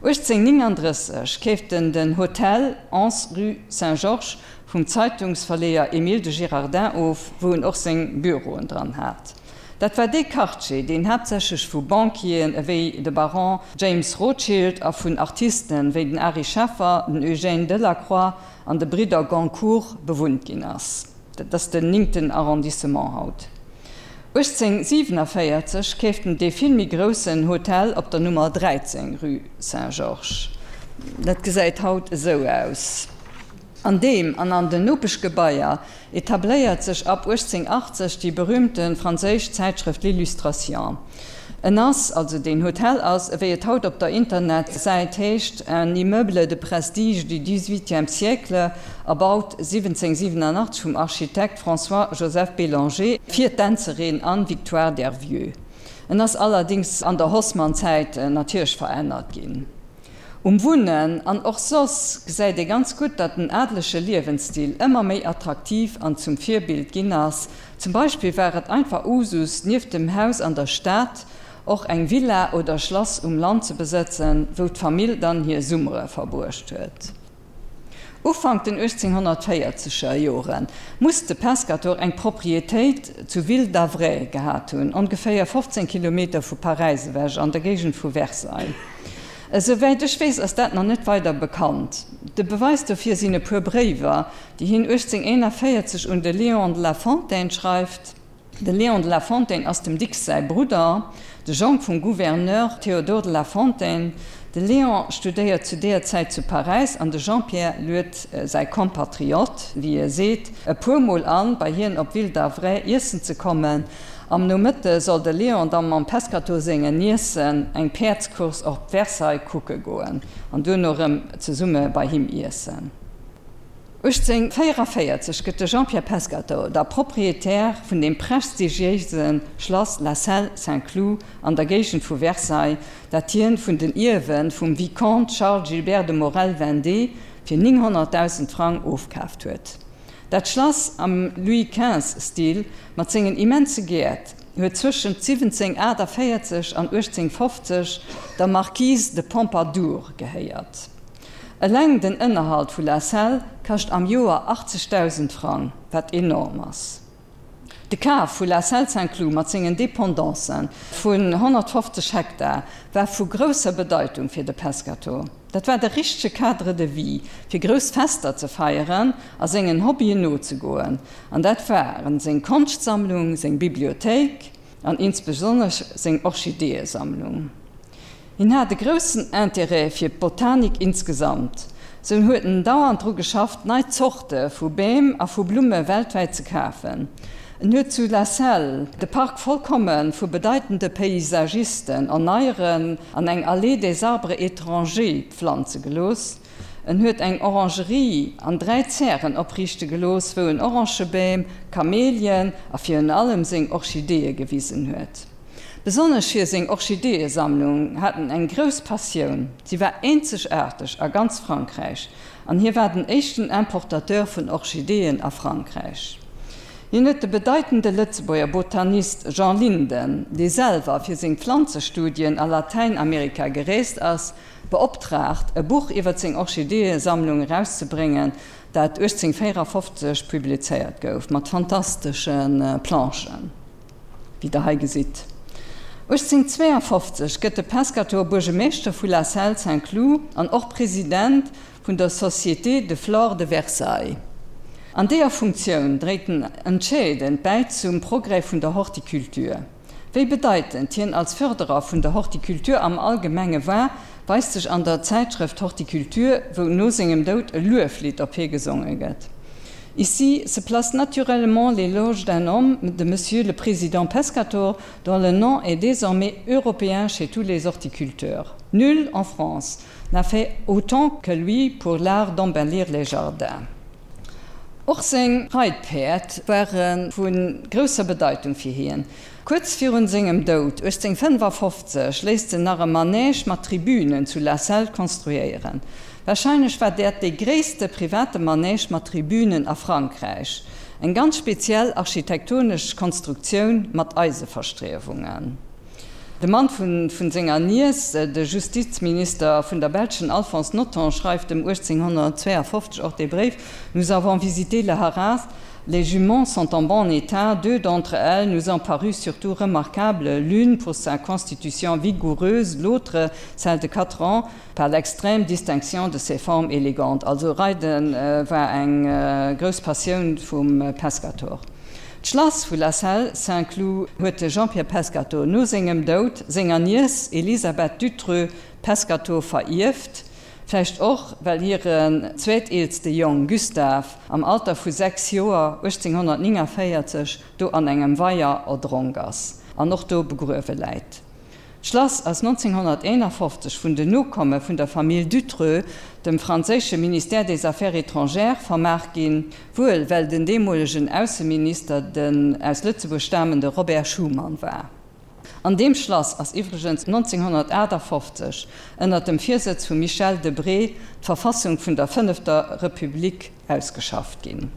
1839 keeft en den Hotel 11 rue Saint-Georges vum Zeitungsverleeër Émile de Girardin of, wou en och seng Büroen dran hat. Dat war dee Quartier, deen haaptsächlech vu Banquieren ewéi de Baron James Rothschild a vun Artisten wéi den Ary Scheffer, den Eugène Delacroix an de Bridder Goncourt bewunnt ginn ass. Dat ass den néngten Arrondissement haut. 1847 keeft en dee vill méi groussen Hotel op der Nummer 13, rue Saint-Georges. Dat gesäit haut esou aus. An deem an an den Nopeschgebaier etabléiert sech ab 1880 déi berühmte franséisch Zäitschrëft L'Illustration. En ass, also deen Hotel ass, ewéi et haut op der Internetsäit heescht, un immeuble de prestige du XVIIIe siècle, erbaut 1787 vum Architekt François-Joseph Bélanger fir d'Dänzerin Anne-Victoire Dervieux. En ass allerdings an der Haussmann-Zäit natierlech verännert ginn. Um Wunnen an och soss gesäit ee ganz gutt, datt den adelege Liewensstil ëmmer méi attraktiv an zum Virbild ginn ass. Zum Beispill war et einfach Usus, nieft dem Haus an der Stad och eng Villa oder Schlass um Land ze besëtzen, wou d'Famill dann hir Summere verbruecht huet. Ufank den 1840er Jore muss de Pescator eng Proprietéit zu Ville-d'Avray gehat hunn, ongeféier 15 Kilometer vu Paräis ewech, an der Géigend vu Versailles. Esouwäit ech weess, ass dat nach net weider bekannt. De Beweis dofir sinn e puer Bréiwer, déi hien 1841 un de Léon de la Fontaine schreift. De Léon de la Fontaine ass dem Dicks säi Brudder, de Jong vum Gouverneur Théodore de la Fontaine. De Léon studéiert zu deeër Zäit zu Paräis an de Jean-Pierre luet säi Compatriote, wéi e seet, e puer Mol an, bei hien op Ville d'Avray iessen ze kommen. Am Nomëtte soll de Léon da mam Pescatore sengen Niècen eng Päerdscourse op Versailles kucke goen an duerno erëm zesumme bei him iessen. 1844 gëtt de Jean-Pierre Pescatore da Proprietär vun dem prestigiéise Schlass La Celle-Saint-Cloud an der Géigend vu Versailles, dat hien vun den Ierwe vum Vicomte Charles Gilbert de Morel-Vendée fir 900.000 Frang ofkaaft huet. Dat Schlass am Louis-XV-Stil mat sengen immense Gäert huet zwëschent 1748 an 1850 der Marquise de Pompadour gehéiert. Eleng den Ënnerhalt vu La Celle kascht am Joer 80.000 Frang, wat enorm ass. De Kaf vu La Celle-Saint-Cloud mat sengen Dependancen vun 150 Hektar war vu grousser Bedeitung fir de Pescatore. Dat war de richtege Cadre de vie, fir grouss Fester ze feieren a sengen Hobbyen nozegoen. An dat waren seng Konschtsammlung, seng Bibliothéik an insbesonnesch seng Orchideeësammlung. Hien hat e groussen Interêt fir d'Botanik insgesamt. Sou huet en dauernd dru geschafft, nei Zorte vu Beem a vu Blumme weltwäit ze kafen. En huet zu La Celle de Park vollkomme vu bedeitende Paysagisten erneieren an eng Allée des arbres étrangers pflanze gelooss. En huet eng Orangerie an 3 Zären opriichte gelooss, wou en Orangebeem, Kamelien a virun allem seng Orchideeë gewisen huet. Besonnesch fir seng Orchideeësammlung hat en eng grouss Passioun. Si war eenzegaarteg a ganz Frankräich an hie war den éischten Importateur vun Orchideeën a Frankräich. Hien huet de bedeitende Lëtzebuerger Botanist Jean Linden, dee selwer fir seng Pflanzestudien a Latäinamerika gereest ass, beoptraagt, e Buch iwwer seng Orchideeësammlung erauszebréngen, dat 1854 publizéiert gouf, mat fantastesche Planchen. Wéi der hei gesitt. 1852 gëtt de Pescatore Buergemeeschter vu La Celle-Saint-Cloud an och President vun der Société de Flore de Versailles. An deeër Funktioun dréit en entscheedend bäi zum Progrès vun der Horticulture. Wéi bedeitend hien als Fërderer vun der Horticulture am Allgemenge war, weist sech an der Zäitschrëft Horticulture, wou no sengem Doud e Lueflidd op hie gesonge gëtt. Ici se place naturellement l'éloge d'un homme de Monsieur le Président Pescator, dont le nom est désormais européen chez tous les horticulteurs. Nul en France n'a fait autant que lui pour l'art d'embellir les jardins. Och seng Reitpäerd ware vu grousser Bedeitung fir hien. Kuerz virun sengem Doud 1855 léisst en nach e Manège mat Tribünen zu La Celle konstruéieren. Warscheinlech war dat dee gréisste private Manège mat Tribünen a Frankräich. Eng ganz speziell architektonesch Konstruktioun mat Eiseverstriewungen. De Mann vun senger Niess, de Justizminister vun der belschen Alphonse Nothomb, schreift em 1852 och dee Bréif, Nous avons visité le haras, les juments sont en bon état, deux d'entre elles nous ont paru surtout remarquables, l'une pour sa constitution vigoureuse, l'autre, celle de quatre ans, par l'extrême distinction de ses formes élégantes. Also Reide war eng grouss Passioun vum Pescator. D'Schlass vu La Celle-Saint-Cloud huet de Jean-Pierre Pescatore no sengem Doud senger Niess Elisabeth Dutreux-Pescatore verierft, vläicht och well hiren zweeteelste Jong Gustave am Alter vu 6 Joer 1849 do an engem Weier erdronk ass an och do begruewe läit. D'Schlass ass 1951 vun den Nokomme vun der Famill Dutreux dem franséische Ministère des Affaires étrangères vermaach ginn, wuel well den deemolegen Ausseminister den aus Lëtzebuerg stamende Robert Schuman war. An deem Schlass ass iwwregens 1958 ënner dem Virsëtz vum Michel Debré d'Verfassung vun der fënnefter Republik ausgeschafft ginn.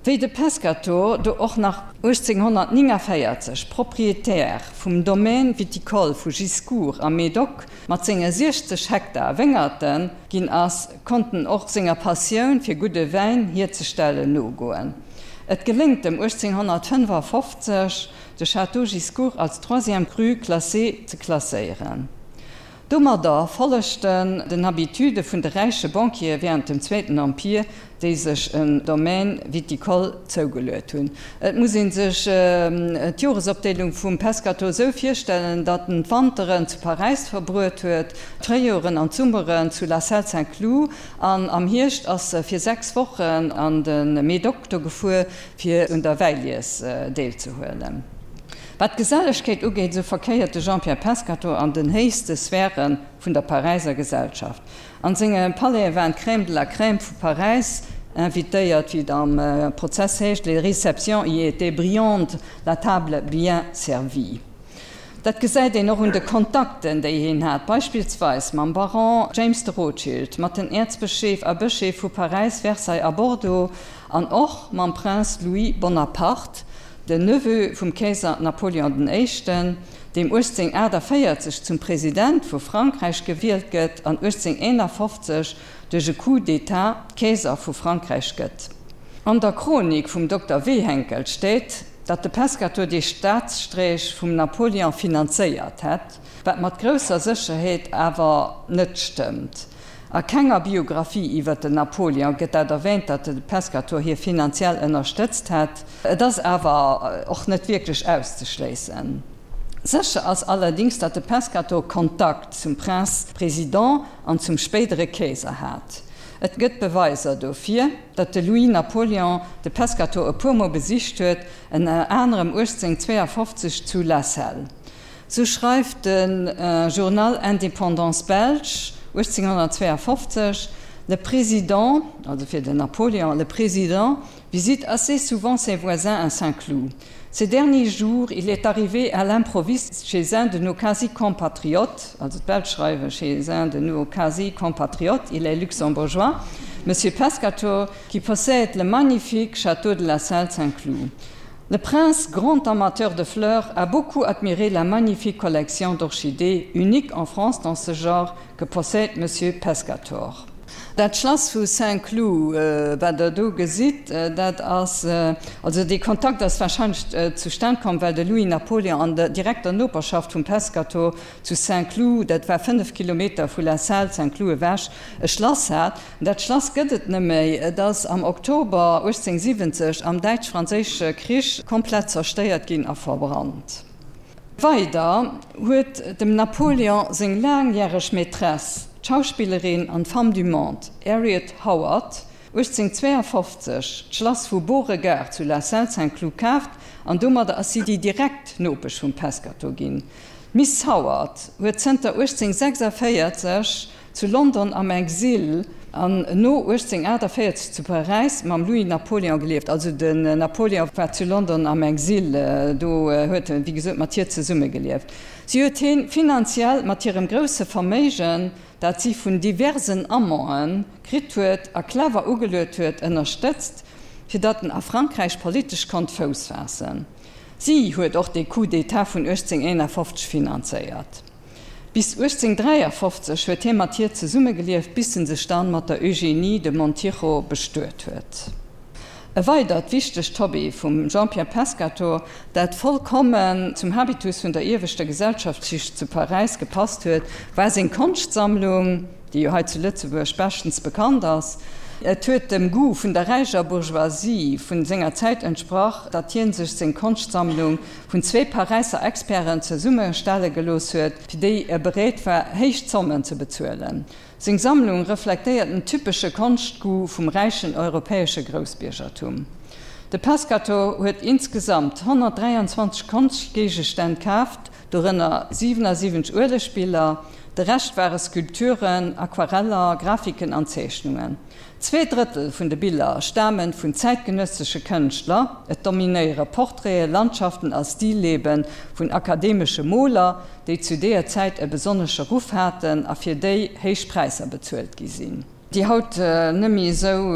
Wéi de Pescator do och nach 1849 Proprietär vum Domaine viticole vu Giscourt am Médoc mat senge 60 Hektar Wéngerte ginn ass, konnt en och senger Passioun fir gudde Wäin hierzestellen nogoen. Et geléngt em 1855, de Château Giscourt als Troisième Cru classé ze klasséieren. Domadder follegt en den Habitude vun de räiche Banquiere während dem Zweeten Empire, déi sech en Domaine viticole zougeluet hunn. Et muss ee sech d'Joresopdeelung vum Pescator esou virstellen, datt en d'Wanteren zu Paräis verbruet huet, d'Fréijoren an d'Summeren zu La Celle-Saint-Cloud an am Hierscht ass e fir 6 Wochen an de Médoc do gefuer, fir un der Wäilies deelzehuelen. Wat d'Gesellegkeet ugeet, esou verkéiert de Jean-Pierre Pescatore an den héichste Sphäre vun der Paräiser Gesellschaft. An senge Palaise waren d'Crème de la Crème vu Paräis invitéiert, wéi et am Prozess heescht, Les réceptions y étaient brillantes, la table bien servie. Dat gesäit een och un de Kontakten, déi hien hat, beispillsweis mam Baron James de Rothschild, mat den Äerzbescheef a Bëscheef vu Paräis, Versailles a Bordeaux an och mam Prince Louis Bonaparte, Den Neveu vum Keeser Napoleon den Éischten, deem 1848 zum President vu Frankräich gewielt gëtt an 1851 duerch e Coup d'État Keeser vu Frankräich gëtt. An der Chronik vum Dokter Wehenkel steet, datt de Pescator dee Staatsstreech vum Napoleon finanzéiert hätt, wat mat grousser Sécherheet awer net stëmmt. A kenger Biographie iwwer den Napoleon gëtt dat erwähnt, datt de Pescator hie finanziell ënnerstëtzt hätt. Et ass awer och net wierklech auszeschléissen. Sécher ass allerdings, datt de Pescator Kontakt zum Prince Président an zum spéidere Keeser hat. Et gëtt Beweiser dofir, datt de Louis Napoleon de Pescator e puer Mol besicht huet, ënner anerem 1852 zu La Celle. Sou schreift de Journal Indépendance belge 1852, Le président, also fir den Napoléon, le président visite assez souvent ses voisins à Saint-Cloud. Ces derniers jours, il est arrivé à l'improviste chez un de nos quasi-compatriotes, also d'Belsch schreiwe chez un de nos quasi-compatriotes, il est luxembourgeois, Monsieur Pescator, qui possède le magnifique château de la Salle Saint-Cloud. Le prince, grand amateur de fleurs, a beaucoup admiré la magnifique collection d'orchidées unique en France dans ce genre que possède Monsieur Pescator. Dat Schlass vu Saint-Cloud, wat Der do gesitt, dat ass, also dee Kontakt ass wahrscheinlech zustan komm, well de Louis Napoléon an der direkter Noperschaft vum Pescator zu Saint-Cloud, dat war 5 Kilometer vu La Celle Saint-Cloud ewech, e Schlass hat. Dat Schlass gëtt et net méi, et ass am Oktober 1870 am Däitsch-Franséische Krich komplett zerstéiert ginn a verbrannt. Weider huet dem Napoléon seng laangjäreg Maîtresse, d'Schauspillerin an Femme du monde Harriet Howard, 1852 d'Schlass vu Beauregard zu La Celle-Saint-Cloud kaaft an domadder ass si déi direkt Nopesch vum Pescator ginn. D'Miss Howard huet zënter 1846 Zu London am Exil. An no 1848 zu Paräis mam Louis Napoléon gelieft. Also den Napoléon war zu London am Exil, do huet en wéi gesot mat hir zesummegelieft. Si huet hien finanziell mat hirem grousse Verméigen, dat si vun diversen Amanten kritt huet a clever ugeluet huet, ënnerstëtzt, fir datt en a Frankräich politesch konnt Fouss faassen. Si huet och de Coup d'État vun 1851 finanzéiert. Bis 1853 huet hie mat hir zesummegelieft, bis en sech dann mat der Eugénie de Montijo bestuet huet. E weidert wichtegt Hobby vum Jean-Pierre Pescatore, dat vollkommen zum Habitus vun der ieweschter Gesellschaftsschicht zu Paräis gepasst huet, war seng Konschtsammlung, déi jo hei zu Lëtzebuerg beschtens bekannt ass. Et huet dem Goût vun der räicher Bourgeoisie vun senger Zäit entsprach, datt hien sech seng Konschtsammlung vun zwee Paräisser Experten zesummestelle gelooss huet, fir déi e bereet war, héich Zommen ze bezuelen. Seng Sammlung reflektéiert den typesche Konschtgoût vum räichen europäesche Groussbiergertum. De Pescatore huet insgesamt 123 Konschtgéigestänn kaaft, dorënner 77 Uelegbiller, de Rescht ware Skulpturen, Aquareller, Grafiken an Zeechnungen. Zweedrëttel vun de Biller stame vun zäitgenëssesche Kënschtler, et dominéiere Portraiten, Landschaften a Stillebe vun akademesche Moler, déi zu deeër Zäit e besonnesche Ruff haten a fir déi héich Präisser bezuelt gi sinn. Déi haut net méi esou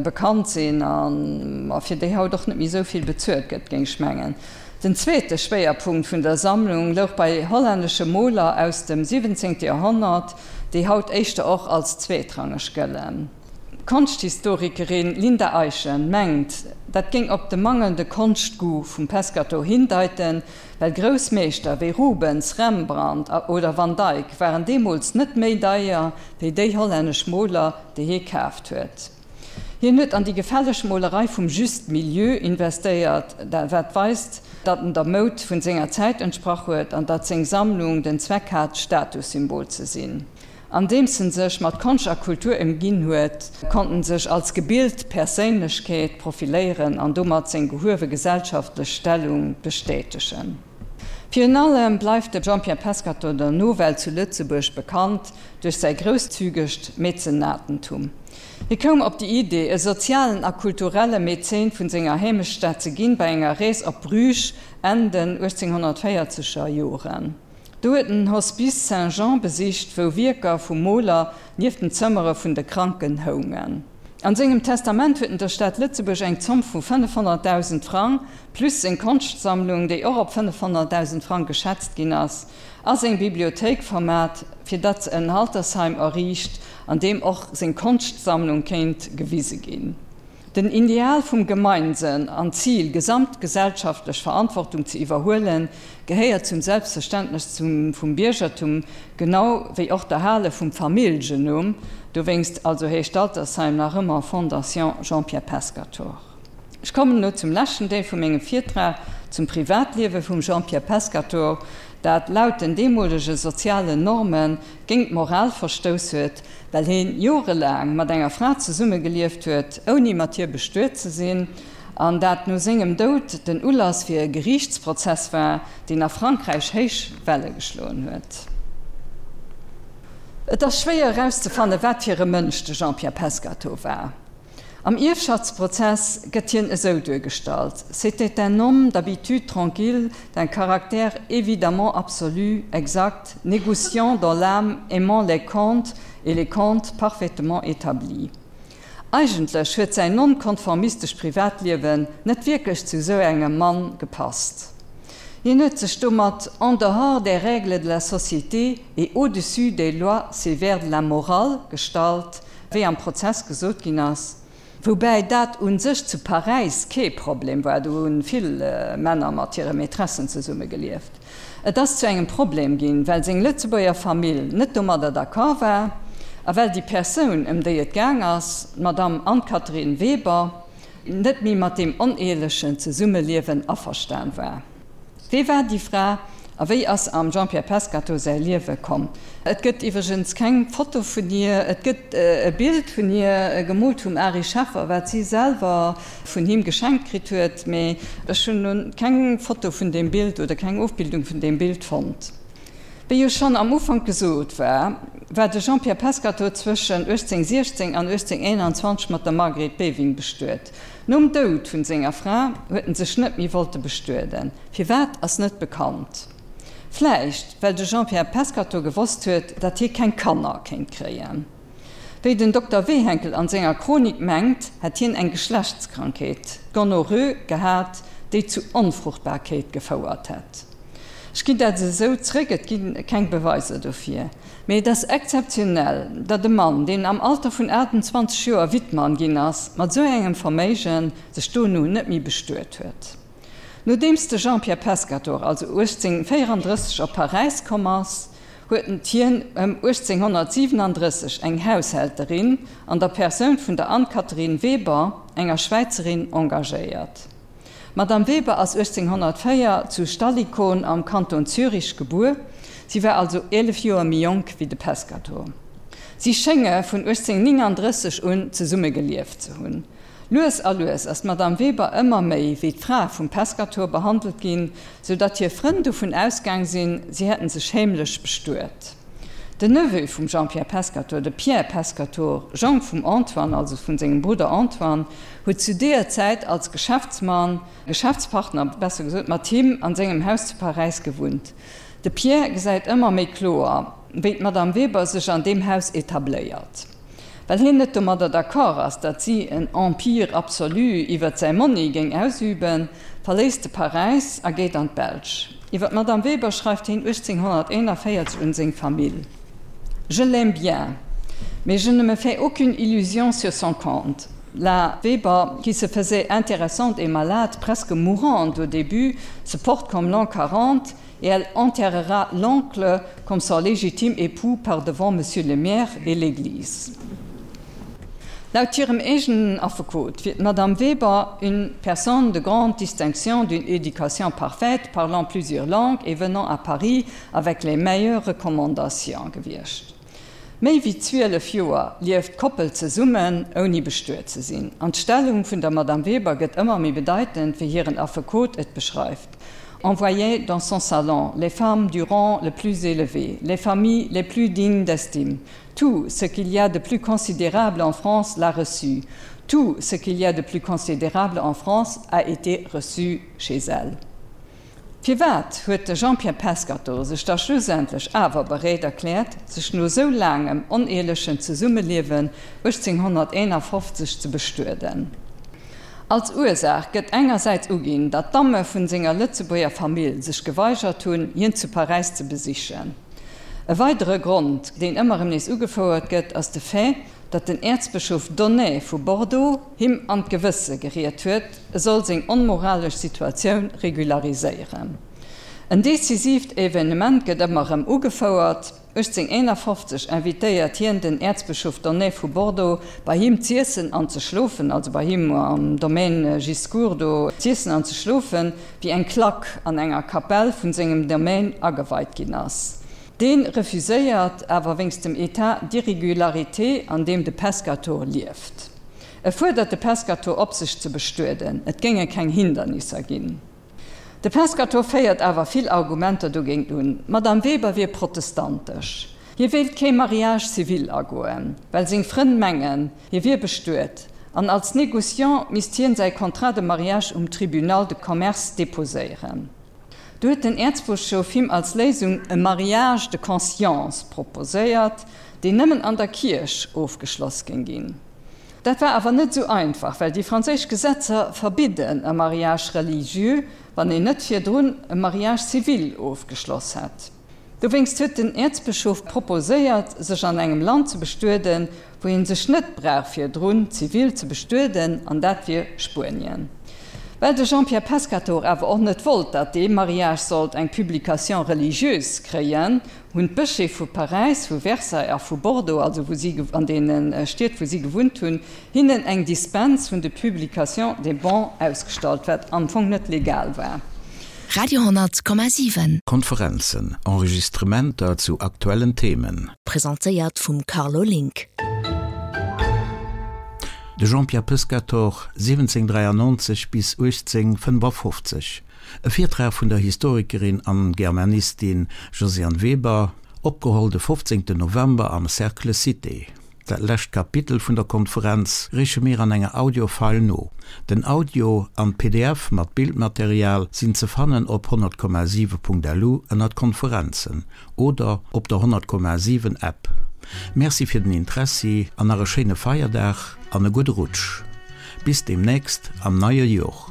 bekannt sinn a fir déi haut och net méi esou vill bezuelt gëtt, géing ech mengen. Den zweete Schwéierpunkt vun der Sammlung louch bei hollännesche Moler aus dem 17. Joerhonnert, déi haut éischter och als zweetrangeg gëllen. D'Konschthistorikerin Linda Eyschen mengt, dat géing op de mangelnde Konschtgoût vum Pescatore hindeiten, well grouss Meeschter wéi Rubens, Rembrandt oder Van Dyck waren deemools net méi deier wéi déi hollännesch Moler, déi hie kaaft huet. Hien huet an déi gefälleg Molerei vum Juste Milieu investéiert, wat weist, datt en der Moud vun senger Zäit entsprach huet an datt seng Sammlung den Zweck hat, Statussymbol ze sinn. Andeems en sech mat Konscht a Kultur ëmginn huet, konnt en sech als gebilt Perséinlechkeet profiléieren an domat seng gehuewe gesellschaftlech Stellung bestätegen. Virun allem bleift de Jean-Pierre Pescatore der Nowelt zu Lëtzebuerg bekannt duerch säi grousszügegt Mäzenatentum. Hie koum op déi Idee, e sozialen a kulturelle Mäzen vun senger Heemechtsstad ze ginn, bei enger Rees op Bruges Enn den 1840 er Joren. Do huet en den Hospice Saint-Jean besicht, wou Wierker vum Moler nieft den Zëmmere vun de Kranken houngen. An sengem Testament huet en der Stad Lëtzebuerg eng Zomm vu 500.000 Frang, plus seng Konschtsammlung, déi och op 500.000 Frang geschätzt ginn ass, a seng Bibliothéik vermat, fir datt se en Altersheim erriicht, an deem och seng Konschtsammlung kéint gewise ginn. Den Ideal vum Gemeinsënn an d'Zil, gesamtgesellschaftlech Verantwortung ze iwwerhuelen, gehéiert zum Selbstverständnes vum Biergertum, genau wéi och d'Erhale vum Familljenumm. Dowéinst also heescht d'Altersheim nach ëmmer Fondation Jean-Pierre Pescatore. Ech kommen elo zum leschten Deel vu mengem Virtrag, zum Privatliewe vum Jean-Pierre Pescatore, dat laut den deemolege sozialen Norme géint d'Moral verstouss huet, well heen jorelaang mat enger Fra zesummegelieft huet, ouni mat hir bestuet ze sinn, an dat no sengem Doud den Ulass fir e Geriichtsprozess war, deen a Frankräich héich Welle geschloen huet. Et ass schwéier erauszefanne wat fir e Mënsch de Jean-Pierre Pescatore war. Am Ierfschaftsprozess gëtt hien esou duergestallt, C'était un homme d'habitude tranquille, d'un caractère évidemment absolu, exact, négociant dans l'âme, aimant les contes et les contes parfaitement établis. Eigentlech huet säin nonkonformistescht Privatliewen net wierklech zu esou engem Mann gepasst. Hien huet sech domat en dehors des règles de la société et au-dessus des lois sévères de la morale gestallt, wéi am Prozess gesot ginn ass, woubäi dat u sech zu Paräis kee Problem war, do hu vill Männer mat hire Maîtressen zesumme gelieft. Et ass zu engem Problem ginn, well seng Lëtzebuerger Famill net domadder d'accord war a well déi Persoun, ëm déi et gaang ass, d'Madame Anne-Catherine Weber, net méi mat deem oneelechen Zesummeliewen averstan war. Wee war déi Fra a wéi ass se am Jean-Pierre Pescatore säi Liewe komm? Et gëtt iwwregens keng Foto vun hir. Et gëtt e Bild vun hir, gemoolt vum Ary Scheffer, wat si selwer vun him geschenkt kritt huet, mee ech hunn elo keng Foto vun deem Bild oder keng Ofbildung vun deem Bild fonnt. Wéi jo schonn am Ufank gesot war, war de Jean-Pierre Pescatore zwëschen 1816 an 1821 mat der Margret Beving bestuet. Nom Doud vun senger Fra huet en sech net méi wollte bestueden. Firwat ass net bekannt. Vläicht well de Jean-Pierre Pescatore gewosst huet, datt hie keng Kanner kéint kréien. Wéi den Dokter Wehenkel an senger Chronik mengt, hätt hien eng Geschlechtskrankheet, d'Gonorrhoe, gehat, déi zu Onfruchtbarkeet gefouert hätt. Ech ginn dat esou zréck, et gi keng Beweiser dofir. Mee et ass exzeptionell, datt e Mann, deen am Alter vun 28 Joer Wittmann ginn ass, mat esou engem Verméigen, sech dono net méi bestuet huet. Nodeems de Jean-Pierre Pescatore also 1834 op Paräis komm ass, huet hien ëm 1837 eng Haushälterin an der Persoun vun der Anne-Catherine Weber, enger Schwäizerin, engagéiert. D'Madame Weber ass 1804 zu Stallikon am Kanton Zürich gebuer, si war also 11 Joer méi jonk wéi de Pescatore. Si schénge vun 1839 un zesumme gelieft ze hunn. Lues a lues ass d'Madame Weber ëmmer méi wéi d'Fra vum Pescatore behandelt ginn, sou datt hir Frënn dovun ausgaang sinn, si hätten sech heemlech bestuet. Den Neveu vum Jean-Pierre Pescatore, de Pierre Pescatore, Jong vum Antoine, also vun sengem Brudder Antoine, huet zu deeër Zäit als Geschäftsmann, Geschäftspartner besser gesot, mat him an sengem Haus zu Paräis gewunnt. De Pierre gesäit ëmmer méi kloer, wéi d'Madame Weber sech an deem Haus etabléiert. Well hien net domadder d'accord ass, datt si en Empire absolu iwwert säi Monni géing ausüben, verléisst e Paräis a geet an d'Belsch. Iwwer d'Madame Weber schreift hien 1841 un seng Famill, Je l'aime bien, mais je ne me fais aucune illusion sur son compte. La Weber, qui se faisait intéressante et malade, presque mourante au début, se porte comme l'an 40 et elle enterrera l'oncle comme son légitime époux par devant monsieur le maire et l'église. Laut hirem eegenen Affekot wier d'Madame Weber une personne de grande distinction, d'une éducation parfaite, parlant plusieurs langues et venant à Paris avec les meilleures recommandations gewiescht. Méi wéi 12 Joer lieft d'Koppel zesummen, ouni bestuet ze sinn. An d'Stellung vun der Madame Weber gëtt ëmmer méi bedeitend, wéi hiren Affekot et beschreift, On voyait dans son salon les femmes du rang le plus élevé, les familles les plus dignes d'estime. Tout ce qu'il y a de plus considérable en France l'a reçu. Tout ce qu'il y a de plus considérable en France a été reçu chez elle. Firwat huet de Jean-Pierre Pescatore sech da schlussendlech awer bereet erkläert, sech no sou laangem oneelechen Zesummeliewen 1851 ze bestueden? Als Ursaach gëtt engersäits uginn, datt d'Damme vun senger Lëtzebuerger Famill sech geweigert hunn, hien zu Paräis ze besichen. E weidere Grond, deen ëmmer erëm nees ugefouert gëtt, ass de Fait, datt den Äerzbëschof Donnet vu Bordeaux him an d'Gewësse geriet huet, e soll seng onmoralesch Situatioun regulariséieren. En decisiivt Evenement gëtt ëmmer erëm ugefouert, 1851 invitéiert hien den Äerzbëschof Donnet vu Bordeaux bei him z'iessen an ze schlofen, also bei him am Domaine Giscours do z'iessen an ze schlofen, wéi eng Klack an enger Kapell vun sengem Domaine ageweit ginn ass. Dee refuséiert awer wéinst dem État d'irrégularité an deem de Pescatore lieft. E fuerdert de Pescatore op sech ze bestueden, et géinge keng Hindernisser ginn. De Pescatore féiert awer vill Argumenter dogéint un, d'Madame Weber wier protestantesch, hie wéilt kee Mariage civil agoen, well seng Frënn mengen, hie wier bestuet, an als Négociant misst hien säi Contrat de mariage um Tribunal de commerce deposéieren. Du huet den Äerzbëschof him als Léisung e Mariage de conscience proposéiert, deen nëmmen an der Kierch ofgeschloss géing ginn. Dat war awer net esou einfach, well déi franséisch Gesetzer verbidden e Mariage religieux, wann een net virdrun e Mariage civil ofgeschloss hätt. Dowéinst huet den Äerzbëschof proposéiert, sech an engem Land ze bestueden, wou een sech net brauch virdrun zivil ze bestueden, an dat wier Spuenien. Well de Jean-Pierre Pescatore awer och net wollt, datt dee Mariage sollt eng Publication religieuse kréien, hunn d'Bëscheef vu Paräis, vu Versailles a vu Bordeaux, also wou si an deene Stied wou si gewunnt hunn, hinnen eng Dispens vun de Publication des bans ausgestallt, wat am Fong net legal war. Radio 10,7. Konferenzen, Enregistrementer zu aktuellen Themen. Presentéiert vum Carlo Link. De Jean-Pierre Pescatore, 1793 bis 1855, e Virtrag vun der Historikerin an Germanistin Josiane Weber, opgeholl de 15 November am Cercle Cité. Dat lescht Kapitel vun der Konferenz reeche mir an enger Audio-File no. Den Audio an d'PDF mat Bildmaterial sinn ze fannen op 100,7.lu ënnert Konferenzen oder op der 100,7 App. Merci fir den Interessi an nach e schéine Feierdag an e gudde Rutsch. Bis deemnächst am neie Jor.